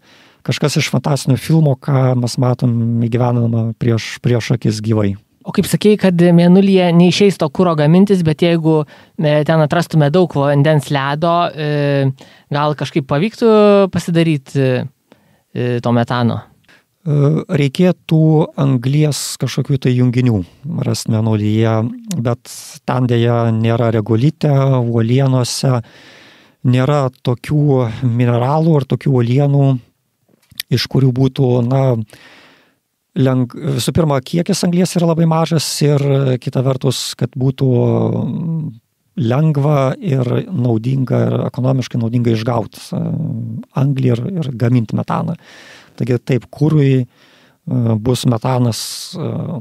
kažkas iš fantastinio filmo, ką mes matom įgyvendinama prieš akis gyvai. O kaip sakėjai, kad Mėnulyje neišeis to kuro gamintis, bet jeigu ten atrastume daug vandens ledo, gal kažkaip pavyktų pasidaryti to metano? Reikėtų anglies kažkokių tai junginių rasti Mėnulyje, bet ten dėja nėra regolite, uolienose, nėra tokių mineralų ar tokių uolienų, iš kurių būtų, visų pirma, kiekis anglies yra labai mažas ir kita vertus, kad būtų lengva ir naudinga ir ekonomiškai naudinga išgauti anglį ir gaminti metaną. Taigi taip, kurui bus metanas,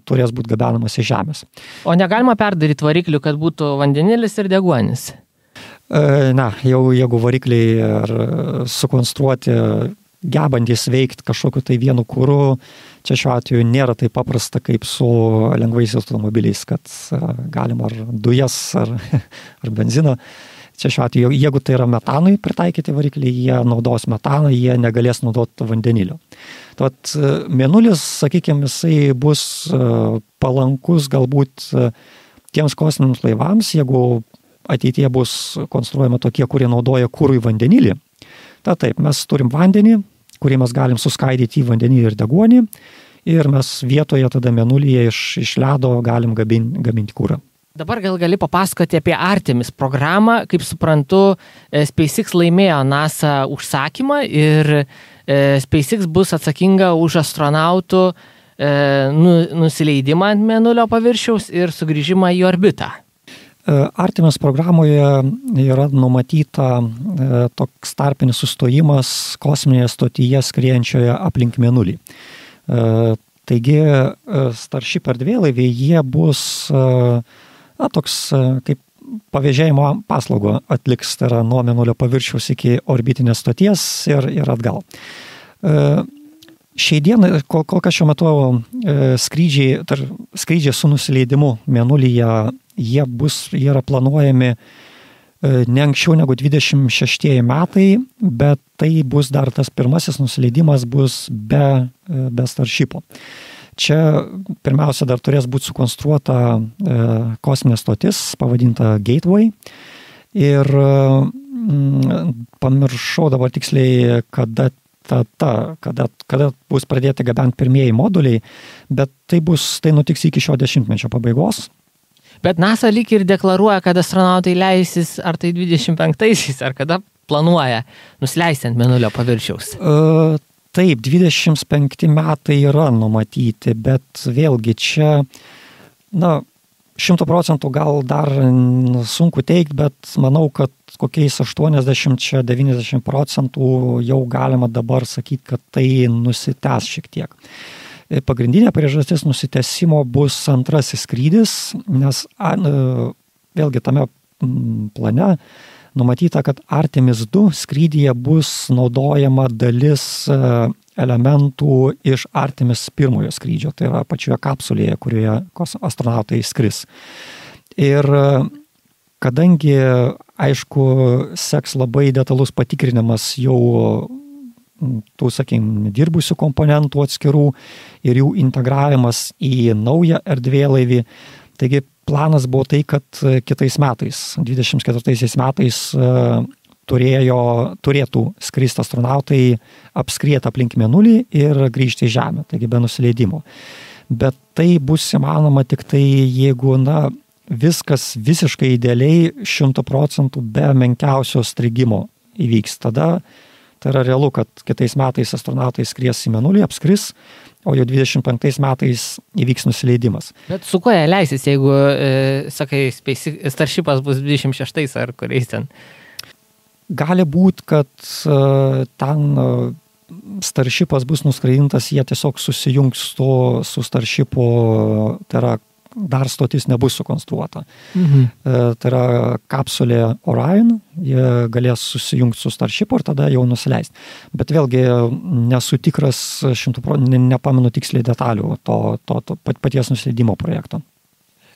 turės būti gabenamas iš Žemės. O negalima perdaryti variklių, kad būtų vandenilis ir deguonis? Jeigu varikliai ar sukonstruoti gebantys veikti kažkokiu tai vienu kuru, čia šiuo atveju nėra taip paprasta kaip su lengvais automobiliais, kad galima ar dujas, ar benziną. Čia šiuo atveju, jeigu tai yra metanui pritaikyti varikliai, jie naudos metaną, jie negalės naudoti vandenilio. Tad Mėnulis, sakykime, jisai bus palankus galbūt tiems kosminiams laivams, jeigu ateityje bus konstruojama tokie, kurie naudoja kurui vandenilį. Taip, mes turim vandenį, kurį mes galim suskaidyti į vandenį ir deguonį ir mes vietoje tada Mėnulyje iš ledo galim gaminti kurą. Dabar gal gali papasakoti apie Artemis programą. Kaip suprantu, SpaceX laimėjo NASA užsakymą ir SpaceX bus atsakinga už astronautų nusileidimą ant Mėnulio paviršiaus ir sugrįžimą į orbitą. Artemis programoje yra numatyta toks tarpinis sustojimas kosminėje stotyje skriejančioje aplink Mėnulį. Taigi Starship erdvėlaiviai, jie bus toks kaip pavėžėjimo paslaugų atliks, tai yra nuo Mėnulio paviršiaus iki orbitinės stoties ir atgal. Šiai dienai, kol kas šiuo metu skrydžiai su nusileidimu Mėnulyje, jie yra planuojami ne anksčiau negu 26 metai, bet tai bus dar tas pirmasis nusileidimas bus be Starshipo. Čia pirmiausia dar turės būti sukonstruota kosminė stotis, pavadinta Gateway. Ir pamiršau dabar tiksliai, kada bus pradėti gabenti pirmieji moduliai, bet tai nutiks iki šio dešimtmečio pabaigos. Bet NASA lyg ir deklaruoja, kad astronautai leisis ar tai 25-aisiais, ar kada planuoja nusileisti ant Mėnulio paviršiaus. Taip, 25 metai yra numatyti, bet vėlgi čia, 100% gal dar sunku teikti, bet manau, kad kokiais 80-90% jau galima dabar sakyti, kad tai nusitęs šiek tiek. Pagrindinė priežastis nusitęsimo bus antrasis skrydis, nes vėlgi tame plane numatyta, kad Artemis 2 skrydyje bus naudojama dalis elementų iš Artemis 1 skrydžio, tai yra pačioje kapsulėje, kurioje astronautai skris. Ir kadangi, aišku, seks labai detalus patikrinimas jau tų, dirbusių komponentų atskirų ir jų integravimas į naują erdvėlaivį. Taigi planas buvo tai, kad kitais metais, 24 metais, turėtų skristi astronautai, apskrieti aplink Mėnulį ir grįžti į Žemę, taigi be nusileidimo. Bet tai bus įmanoma tik tai, jeigu viskas visiškai idealiai 100% be menkiausio strigimo įvyks. Tada tai yra realu, kad kitais metais astronautai skries į Mėnulį, apskris, o jau 25 metais įvyks nusileidimas. Bet su kuo jie leisis, jeigu, sakai, Starshipas bus 26 ar kuriais ten? Gali būti, kad ten Starshipas bus nuskraidintas, jie tiesiog susijungs su Starshipu, tai yra dar stotis nebus sukonstruota. Tai yra kapsulė Orion, jie galės susijungti su Starshipu ir tada jau nusileisti. Bet vėlgi nesu tikras 100%, nepamenu tiksliai detalių to paties nusileidimo projekto.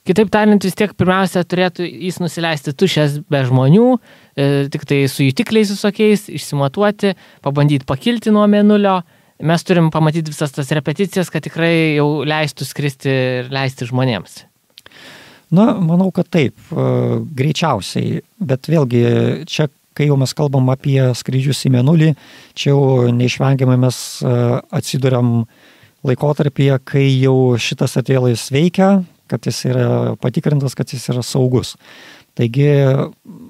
Kitaip tariant, vis tiek pirmiausia turėtų jis nusileisti tušęs be žmonių, tik tai su jutikliais visokiais, išsimatuoti, pabandyti pakilti nuo Mėnulio. Mes turim pamatyti visas tas repeticijas, kad tikrai jau leistų skristi ir leisti žmonėms. Manau, kad taip, greičiausiai, bet vėlgi čia, kai jau mes kalbam apie skrydžius į Mėnulį, čia jau neišvengiamai mes atsiduriam laikotarpyje, kai jau šitas erdvėlaivis veikia, kad jis yra patikrintas, kad jis yra saugus. Taigi,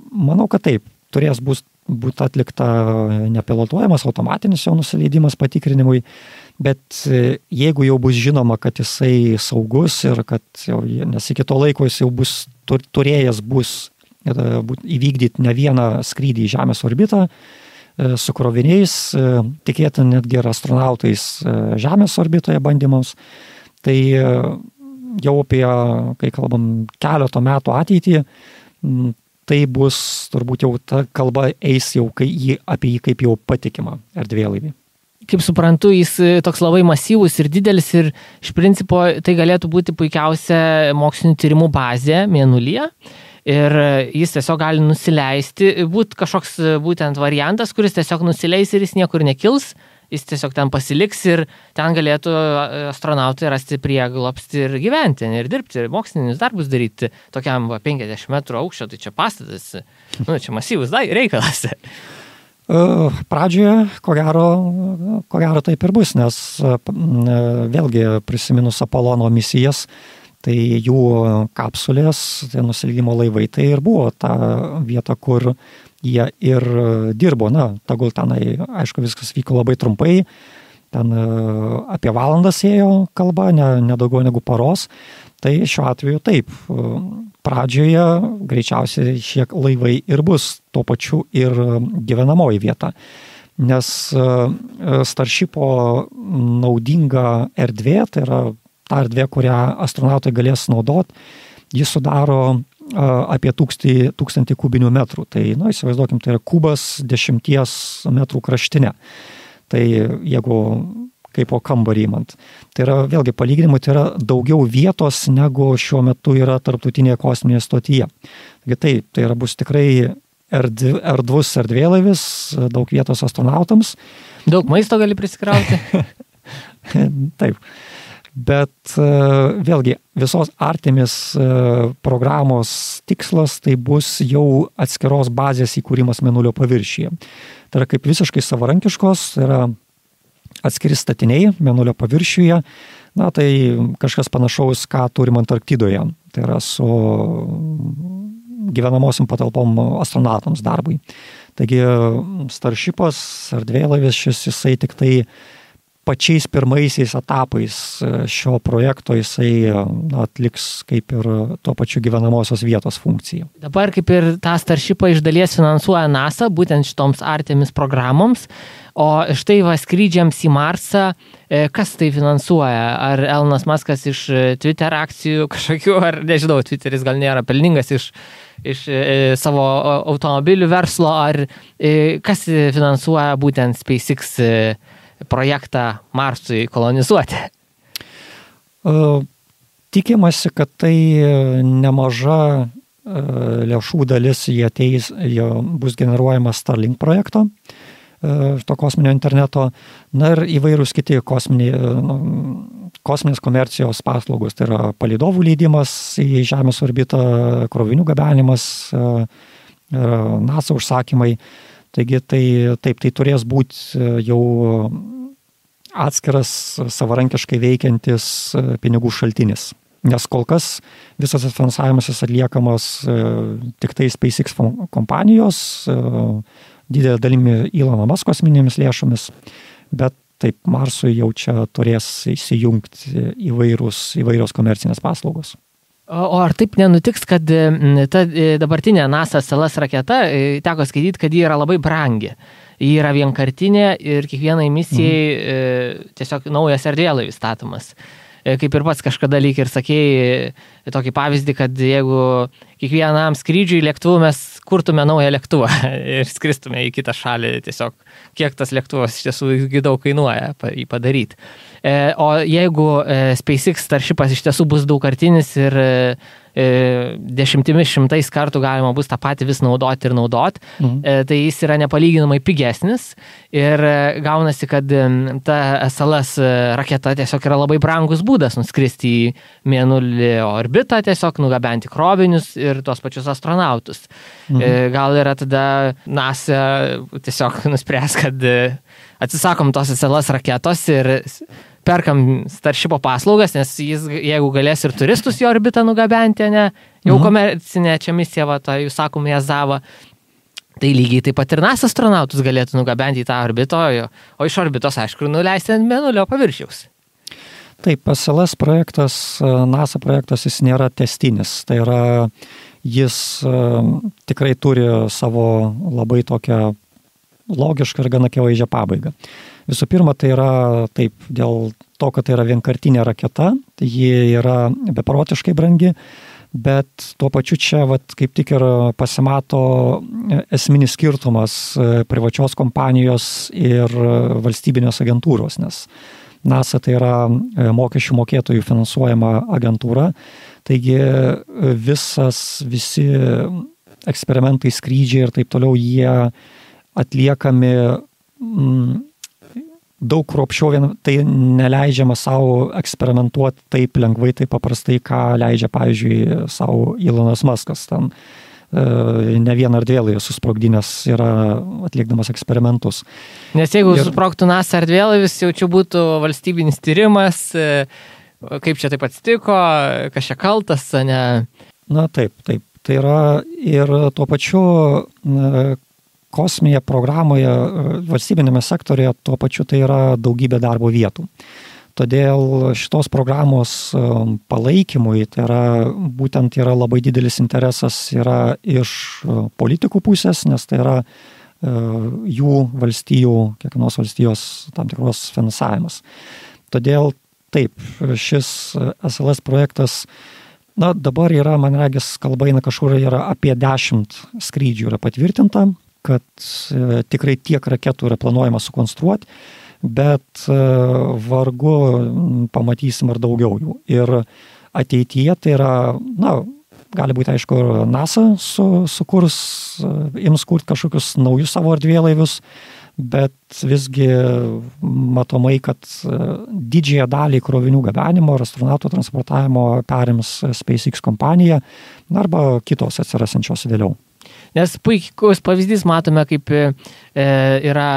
manau, kad taip, turės būti atlikta nepilotuojamas automatinis jo nusileidimas patikrinimui, bet jeigu jau bus žinoma, kad jisai saugus ir kad jau, nes iki to laiko jis jau bus turėjęs įvykdyti ne vieną skrydį į Žemės orbitą su kroviniais, tikėtina netgi ir astronautais Žemės orbitoje bandymams, tai jau apie, kai kalbam, keleto metų ateitį, tai bus turbūt jau ta kalba eis jau apie jį kaip jau patikimą erdvėlaivį. Kaip suprantu, jis toks labai masyvus ir didelis ir iš principo tai galėtų būti puikiausia mokslinių tyrimų bazė Mėnulyje ir jis tiesiog gali nusileisti, būti kažkoks būtent variantas, kuris tiesiog nusileis ir jis niekur nekils, jis tiesiog ten pasiliks ir ten galėtų astronautai rasti prieglobstį ir gyventi ir dirbti, mokslinius darbus daryti tokiam 50 metrų aukščio, tai čia pastatas, čia masyvus reikalas. Pradžioje, ko gero taip ir bus, nes vėlgi prisiminus Apolono misijas, tai jų kapsulės, tai nusileidimo laivai, tai ir buvo ta vieta, kur jie ir dirbo. Tegul tenai, aišku, viskas vyko labai trumpai, ten apie valandas ėjo kalba, ne daugiau negu paros. Tai šiuo atveju taip, pradžioje greičiausiai šie laivai ir bus tuo pačiu ir gyvenamoji vieta. nes Starshipo naudinga erdvė, tai yra ta erdvė, kurią astronautai galės naudoti, jis sudaro apie 1000 kubinių metrų. Tai, įsivaizduokim, tai yra kubas 10 metrų kraštinė. Tai jeigu kaip po kambarį imant. Tai yra, vėlgi, palyginimui, tai yra daugiau vietos, negu šiuo metu yra tarptautinėje kosminėje stotyje. Taigi tai yra bus tikrai erdvus erdvėlaivis, daug vietos astronautams. Daug maisto gali prisikrauti. Taip. Bet vėlgi, visos Artemis programos tikslas tai bus jau atskiros bazės įkūrimas Mėnulio paviršiuje. Tai yra kaip visiškai savarankiškos, tai yra atskiri statiniai Mėnulio paviršiuje, tai kažkas panašaus, ką turim Antarktidoje. Tai yra su gyvenamosiom patalpom astronautams darbui. Taigi Starshipas, erdvėlaivis šis, jisai tik tai pačiais pirmaisiais etapais šio projekto jisai atliks kaip ir tuo pačiu gyvenamosios vietos funkciją. Dabar kaip ir tą Starshipą iš dalies finansuoja NASA, būtent šitoms Artemis programoms, o štai skrydžiams į Marsą, kas tai finansuoja? Ar Elonas Muskas iš Twitter akcijų kažkokių, ar nežinau, Twitteris gal nėra pelningas iš savo automobilių verslo, ar kas finansuoja būtent SpaceX projektą Marsui kolonizuoti? Tikimasi, kad tai nemaža lėšų dalis jie bus generuojama Starlink projekto, to kosminio interneto, ir įvairūs kiti kosminės komercijos paslaugos, tai yra palydovų leidimas į Žemės orbitą, krovinių gabenimas, NASA užsakymai. Taigi tai turės būti jau atskiras savarankiškai veikiantis pinigų šaltinis. Nes kol kas visas finansavimas atliekamas tik tai SpaceX kompanijos, didelė dalimi Elono Musk kosminėmis lėšomis, bet taip Marsui jau čia turės įsijungti įvairios komercinės paslaugos. O ar taip nenutiks, kad ta dabartinė NASA SLS raketa, teko skaityti, kad ji yra labai brangi. Ji yra vienkartinė ir kiekvienai misijai tiesiog naujas erdvėlaivis statomas. Kaip ir pats kažkada lyg ir sakėjai tokį pavyzdį, kad jeigu kiekvienam skrydžiui lėktuvu mes kurtume naują lėktuvą ir skristume į kitą šalį, tiesiog kiek tas lėktuvas iš tiesų daug kainuoja jį padaryti. O jeigu SpaceX Starshipas iš tiesų bus daugkartinis ir dešimtimis šimtais kartų galima bus tą patį vis naudoti ir naudoti, tai jis yra nepalyginamai pigesnis ir gaunasi, kad ta SLS raketa tiesiog yra labai brangus būdas nuskristi į Mėnulį orbitą, tiesiog nugabenti krovinius ir tos pačius astronautus. Gal yra tada NASA tiesiog nuspręs, kad atsisakom tos SLS raketos ir perkam Starshipo paslaugas, nes jis, jeigu galės ir turistus į orbitą nugabenti, jau komercinė čia misija, jūs sakom, Jazava, tai lygiai taip pat ir NASA astronautus galėtų nugabenti į tą orbitą, o iš orbitos, aišku, nuleisti ant Mėnulio paviršiaus. Taip, SLS projektas, NASA projektas, jis nėra testinis, tai yra, jis tikrai turi savo labai tokią logišką ir gana akivaizdžią pabaigą. Visų pirma, tai yra taip, dėl to, kad tai yra vienkartinė raketa, tai ji yra beprotiškai brangi, bet tuo pačiu čia kaip tik ir pasimato esminis skirtumas privačios kompanijos ir valstybinės agentūros, nes NASA tai yra mokesčių mokėtojų finansuojama agentūra, taigi visi eksperimentai, skrydžiai ir taip toliau, jie atliekami daug kruopščiau, tai neleidžiama savo eksperimentuoti taip lengvai, taip paprastai, ką leidžia, pavyzdžiui, savo Elonas Muskas. Ten ne vieną erdvėlaivį susprogdinęs yra atlikdamas eksperimentus. Nes jeigu susprogtų NASA erdvėlaivis, jau čia būtų valstybinis tyrimas, kaip čia taip atsitiko, kas čia kaltas, ne? Na taip. Tai yra ir tuo pačiu kosminėje programoje, valstybinėme sektorėje, tuo pačiu tai yra daugybė darbo vietų. Todėl šitos programos palaikymui, tai yra būtent yra labai didelis interesas yra iš politikų pusės, nes tai yra jų valstijų, kiekvienos valstijos tam tikros finansavimas. Todėl taip, šis SLS projektas, dabar yra, man regis, kalba eina kažkur yra apie 10 skrydžių yra patvirtinta, kad tikrai tiek raketų yra planuojama sukonstruoti, bet vargu pamatysim ar daugiau jų. Ir ateityje tai yra, gali būti, aišku, NASA ims kurti kažkokius naujus savo erdvėlaivius, bet visgi matomai, kad didžiąją dalį krovinių gabenimo ir astronautų transportavimo perims SpaceX kompanija arba kitos atsirasančios vėliau. Nes puikus pavyzdys matome, kaip yra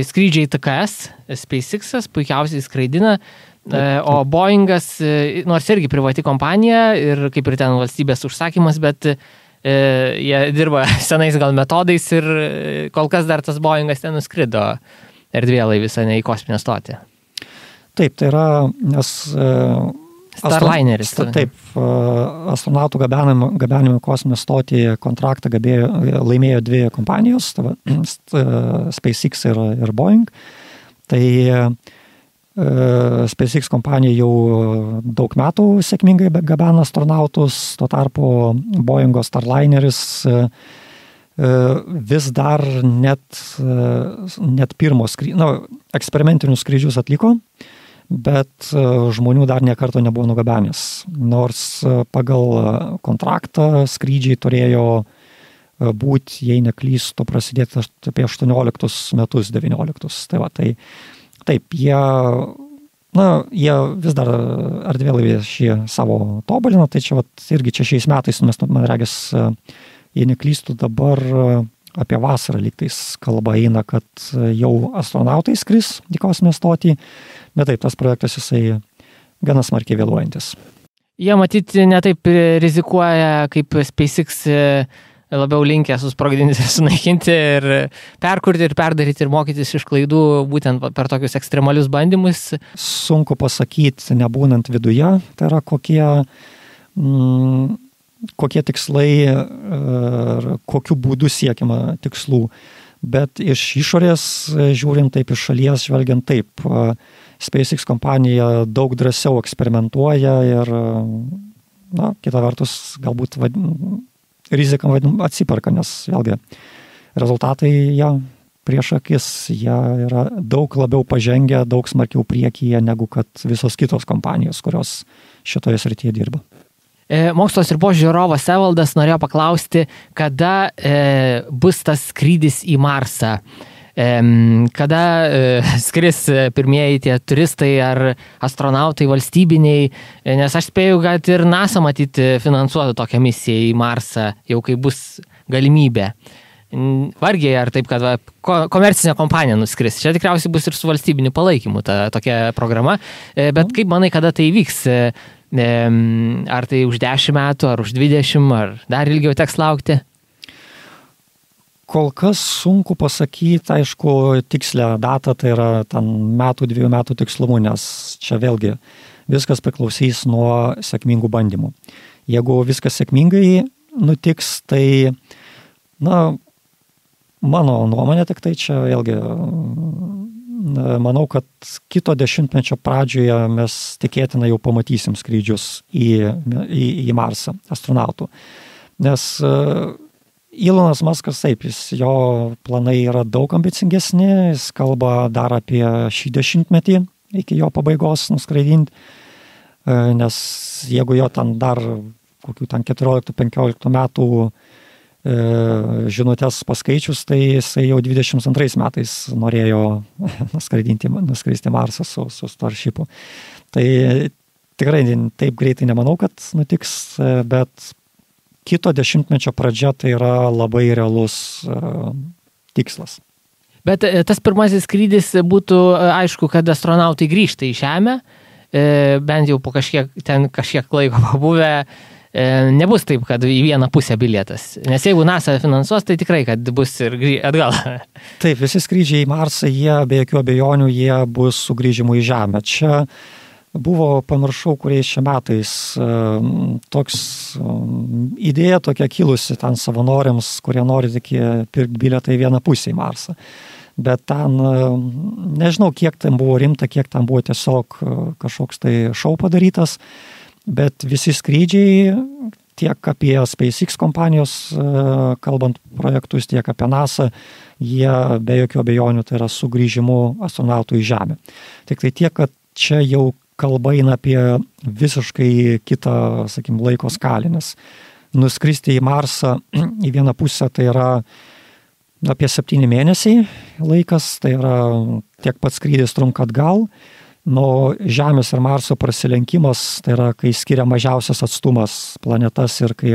skrydžiai TKS, SpaceX'as puikiausiai skraidina, o Boeingas, nors irgi privati kompanija ir kaip ir ten valstybės užsakymas, bet jie dirba senais gal metodais ir kol kas dar tas Boeingas ten nuskrido erdvėlaivis, ne į kosminę stotį. Taip, tai yra, nes Starlineris. Taip, astronautų gabenimo kosminę stotį kontraktą laimėjo 2 kompanijos, SpaceX ir Boeing. Tai SpaceX kompanija jau daug metų sėkmingai gabena astronautus, tuo tarpu Boeingo Starlineris vis dar net pirmo eksperimentinius skrydžius atliko, bet žmonių dar niekarto nebuvo nugabenęs. Nors pagal kontraktą skrydžiai turėjo būti, jei neklystu, prasidėti apie 18 metus, 19. Tai va, tai taip, jie vis dar erdvėlaivį šį savo tobulina, tai čia irgi šiais metais, mes, man regis, jei neklystu, dabar apie vasarą lygtais kalba eina, kad jau astronautai skris į kosminę stotį, bet taip, tas projektas jisai gana smarkiai vėluojantis. Jie matyti netaip rizikuoja, kaip SpaceX labiau linkę susprogdinti ir sunaikinti ir perkurti ir perdaryti ir mokytis iš klaidų būtent per tokius ekstremalius bandymus. Sunku pasakyti, nebūnant viduje, tai yra kokie tikslai ir kokiu būdu siekiama tikslų. Bet iš išorės žiūrint taip, iš šalies žvelgiant taip, SpaceX kompanija daug drąsiau eksperimentuoja ir, kita vertus, galbūt rizika atsiperka, nes vėlgi rezultatai prieš akis, jie yra daug labiau pažengę, daug smarkiau priekyje negu kad visos kitos kompanijos, kurios šitoje srityje dirba. Mokslo sriubos žiūrovas Evaldas norėjo paklausti, kada bus tas skrydis į Marsą. Kada skris pirmieji tie turistai ar astronautai valstybiniai, nes aš spėju, kad ir NASA matyti finansuotų tokią misiją į Marsą, jau kai bus galimybė. Vargiai ar taip, kad komercinė kompanija nuskris. Čia tikriausiai bus ir su valstybiniu palaikymu ta tokia programa, bet kaip manai, kada tai vyks? Ar tai už 10 metų, ar už 20, ar dar ilgiau teks laukti? Kol kas sunku pasakyti, aišku, tikslę datą, tai yra ten 2 metų tikslumu, nes čia vėlgi viskas priklausys nuo sėkmingų bandymų. Jeigu viskas sėkmingai nutiks, tai, mano nuomonė tik tai čia vėlgi, manau, kad kito dešimtmečio pradžioje mes tikėtina jau pamatysim skrydžius į Marsą astronautų. Nes Elonas Muskas, taip, jo planai yra daug ambicingesni, jis kalba dar apie šį dešimtmetį iki jo pabaigos nuskraidinti, nes jeigu jo ten dar kokių 14-15 metų žinutės paskaičius, tai jisai jau 22 metais norėjo nuskristi Marsą su Starshipu. Tai tikrai taip greitai nemanau, kad nutiks, bet kito dešimtmečio pradžia tai yra labai realus tikslas. Bet tas pirmasis skrydis būtų aišku, kad astronautai grįžta į Žemę, bent jau po kažkiek laiko pabuvę, nebus taip, kad į vieną pusę bilietas. Nes jeigu NASA finansuos, tai tikrai, kad bus ir atgal. Taip, visi skrydžiai į Marsą, jie be jokių abejonių, jie bus sugrįžimų į Žemę. Čia buvo, pamiršau, kuriais čia metais, toks idėja tokia kilusi ten savanoriams, kurie nori tik pirkti bilietą į vieną pusę į Marsą. Bet ten, nežinau, kiek ten buvo rimta, kiek ten buvo tiesiog kažkoks tai šou padarytas, bet visi skrydžiai, tiek apie SpaceX kompanijos, kalbant projektus, tiek apie NASA, jie be jokių abejonių tai yra sugrįžimu astronautų į Žemę. Tik tai tiek, kad čia jau kalba eina apie visiškai kitą, sakykim, laiko skalę, nes nuskristi į Marsą į vieną pusę tai yra apie 7 mėnesiai laikas, tai yra tiek pats skrydis trunka atgal, nuo Žemės ir Marso prasilenkimas, tai yra, kai skiria mažiausias atstumas planetas ir kai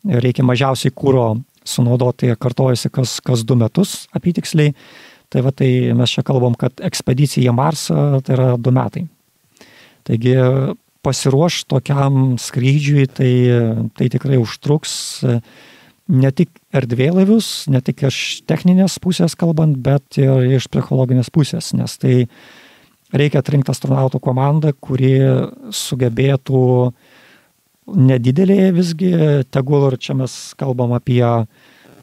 reikia mažiausiai kuro sunaudoti, kartojasi kas 2 metus apytiksliai. Tai va, tai mes čia kalbam, kad ekspedicija į Marsą tai yra 2 metai. Taigi pasiruoš tokiam skrydžiui, tai tikrai užtruks ne tik erdvėlaivius, ne tik iš techninės pusės kalbant, bet ir iš psichologinės pusės, nes tai reikia atrinkti astronautų komandą, kuri sugebėtų nedidelėje visgi, tegul ir čia mes kalbam apie,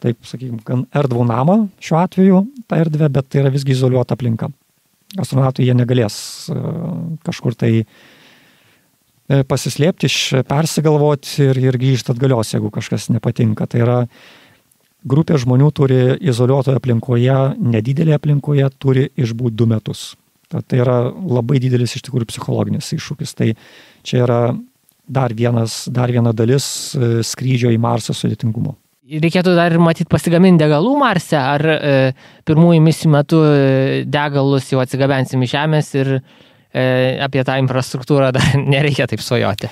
taip sakykime, gan erdvų namą šiuo atveju, tą erdvę, bet tai yra visgi izoliuota aplinka. Astronautai jie negalės kažkur tai pasislėpti, persigalvoti ir grįžti atgalios, jeigu kažkas nepatinka. Tai yra grupė žmonių turi izoliuotoje aplinkoje, nedidelėje aplinkoje, turi išbūti 2 metus. Tai yra labai didelis iš tikrųjų psichologinis iššūkis. Tai čia yra dar viena dalis skrydžio į Marsą sudėtingumo. Reikėtų dar ir matyti pasigaminti degalų Marse, ar pirmųjų misijų metu degalus jau atsigabensim iš Žemės ir apie tą infrastruktūrą dar nereikia taip svajoti.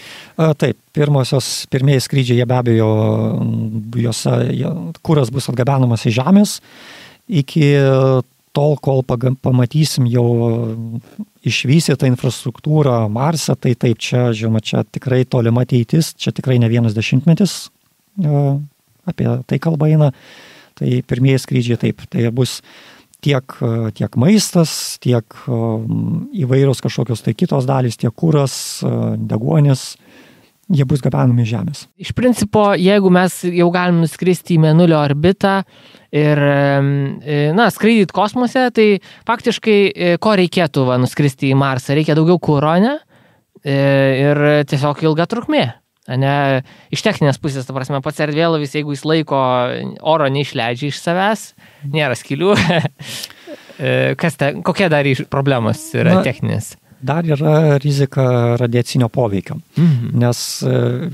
Taip, pirmieji skrydžiai, jie be abejo, kuras bus atgabenamas iš Žemės, iki tol, kol pamatysim jau išvystytą infrastruktūrą Marse, tai taip, čia, žinoma, čia tikrai tolima ateitis, čia tikrai ne 1 dešimtmetis, apie tai kalba eina, tai pirmieji skrydžiai taip, tai bus tiek maistas, tiek įvairios kažkokios tai kitos dalys, tiek kuras, deguonis, jie bus gabenami Žemės. Iš principo, jeigu mes jau galim nuskristi į Mėnulio orbitą ir skraidyt kosmose, tai faktiškai ko reikėtų nuskristi į Marsą? Reikia daugiau kuro, ne? Ir tiesiog ilga trukmė. Ne, iš techninės pusės, ta prasme, pats erdvėlaivis, jeigu jis laiko oro neišleidžia iš savęs, nėra skylių, kokie dar problemos yra techninės? Dar yra rizika radiacinio poveikio, nes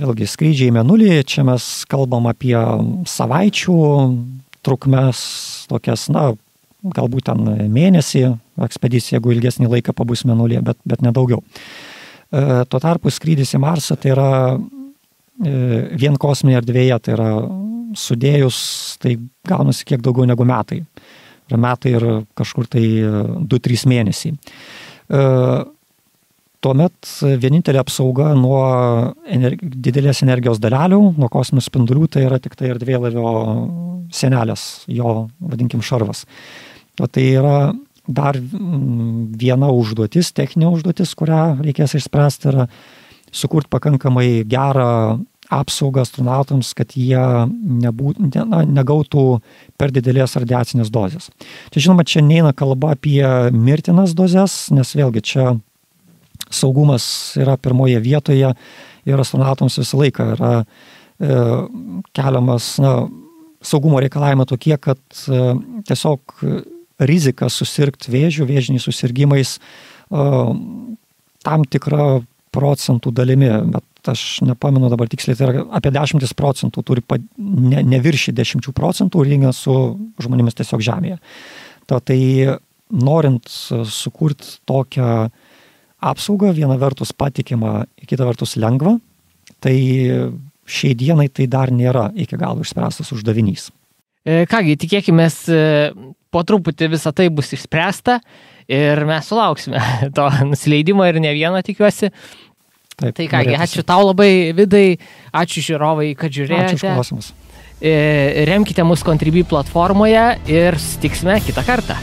vėlgi skrydžiai į Mėnulį, čia mes kalbam apie savaičių trukmes, tokias, galbūt ten mėnesį ekspedicija, jeigu ilgesnį laiką pabus Mėnulyje, bet nedaugiau. Tuo tarpu skrydis į Marsą tai yra vien kosminėje erdvėje, tai yra sudėjus, tai gaunasi kiek daugiau negu metai. Metai ir kažkur tai 2-3 mėnesiai. Tuomet vienintelė apsauga nuo didelės energijos dalelių, nuo kosminių spindulių, tai yra tik tai erdvėlaivio sienelės, jo, vadinkim, šarvas. Tai yra dar viena užduotis, techninė užduotis, kurią reikės išspręsti, yra sukurti pakankamai gerą apsaugą astronautams, kad jie negautų per didelės radiacinės dozės. Čia, žinoma, čia neina kalba apie mirtinas dozes, nes vėlgi čia saugumas yra pirmoje vietoje ir astronautams visą laiką yra keliamas saugumo reikalavimai tokie, kad tiesiog rizika susirgti vėžių, vėžiniais susirgymais tam tikra procentų dalimi, bet aš nepamenu dabar tiksliai, tai yra apie 10% turi neviršyti 10% lyginant su žmonėmis tiesiog Žemėje. Tai norint sukurti tokią apsaugą, viena vertus patikimą, kita vertus lengvą, tai šiai dienai tai dar nėra iki galo išspręstas uždavinys. Kągi, tikėkimės, po truputį visą tai bus išspręsta ir mes sulauksime to nusileidimo ir ne vieną, tikiuosi. Taip, tai kągi, ačiū tau labai, Vidai, ačiū žiūrovai, kad žiūrėjote. Ačiū už klausimus. Remkite mus Contribui platformoje ir susitiksime kitą kartą.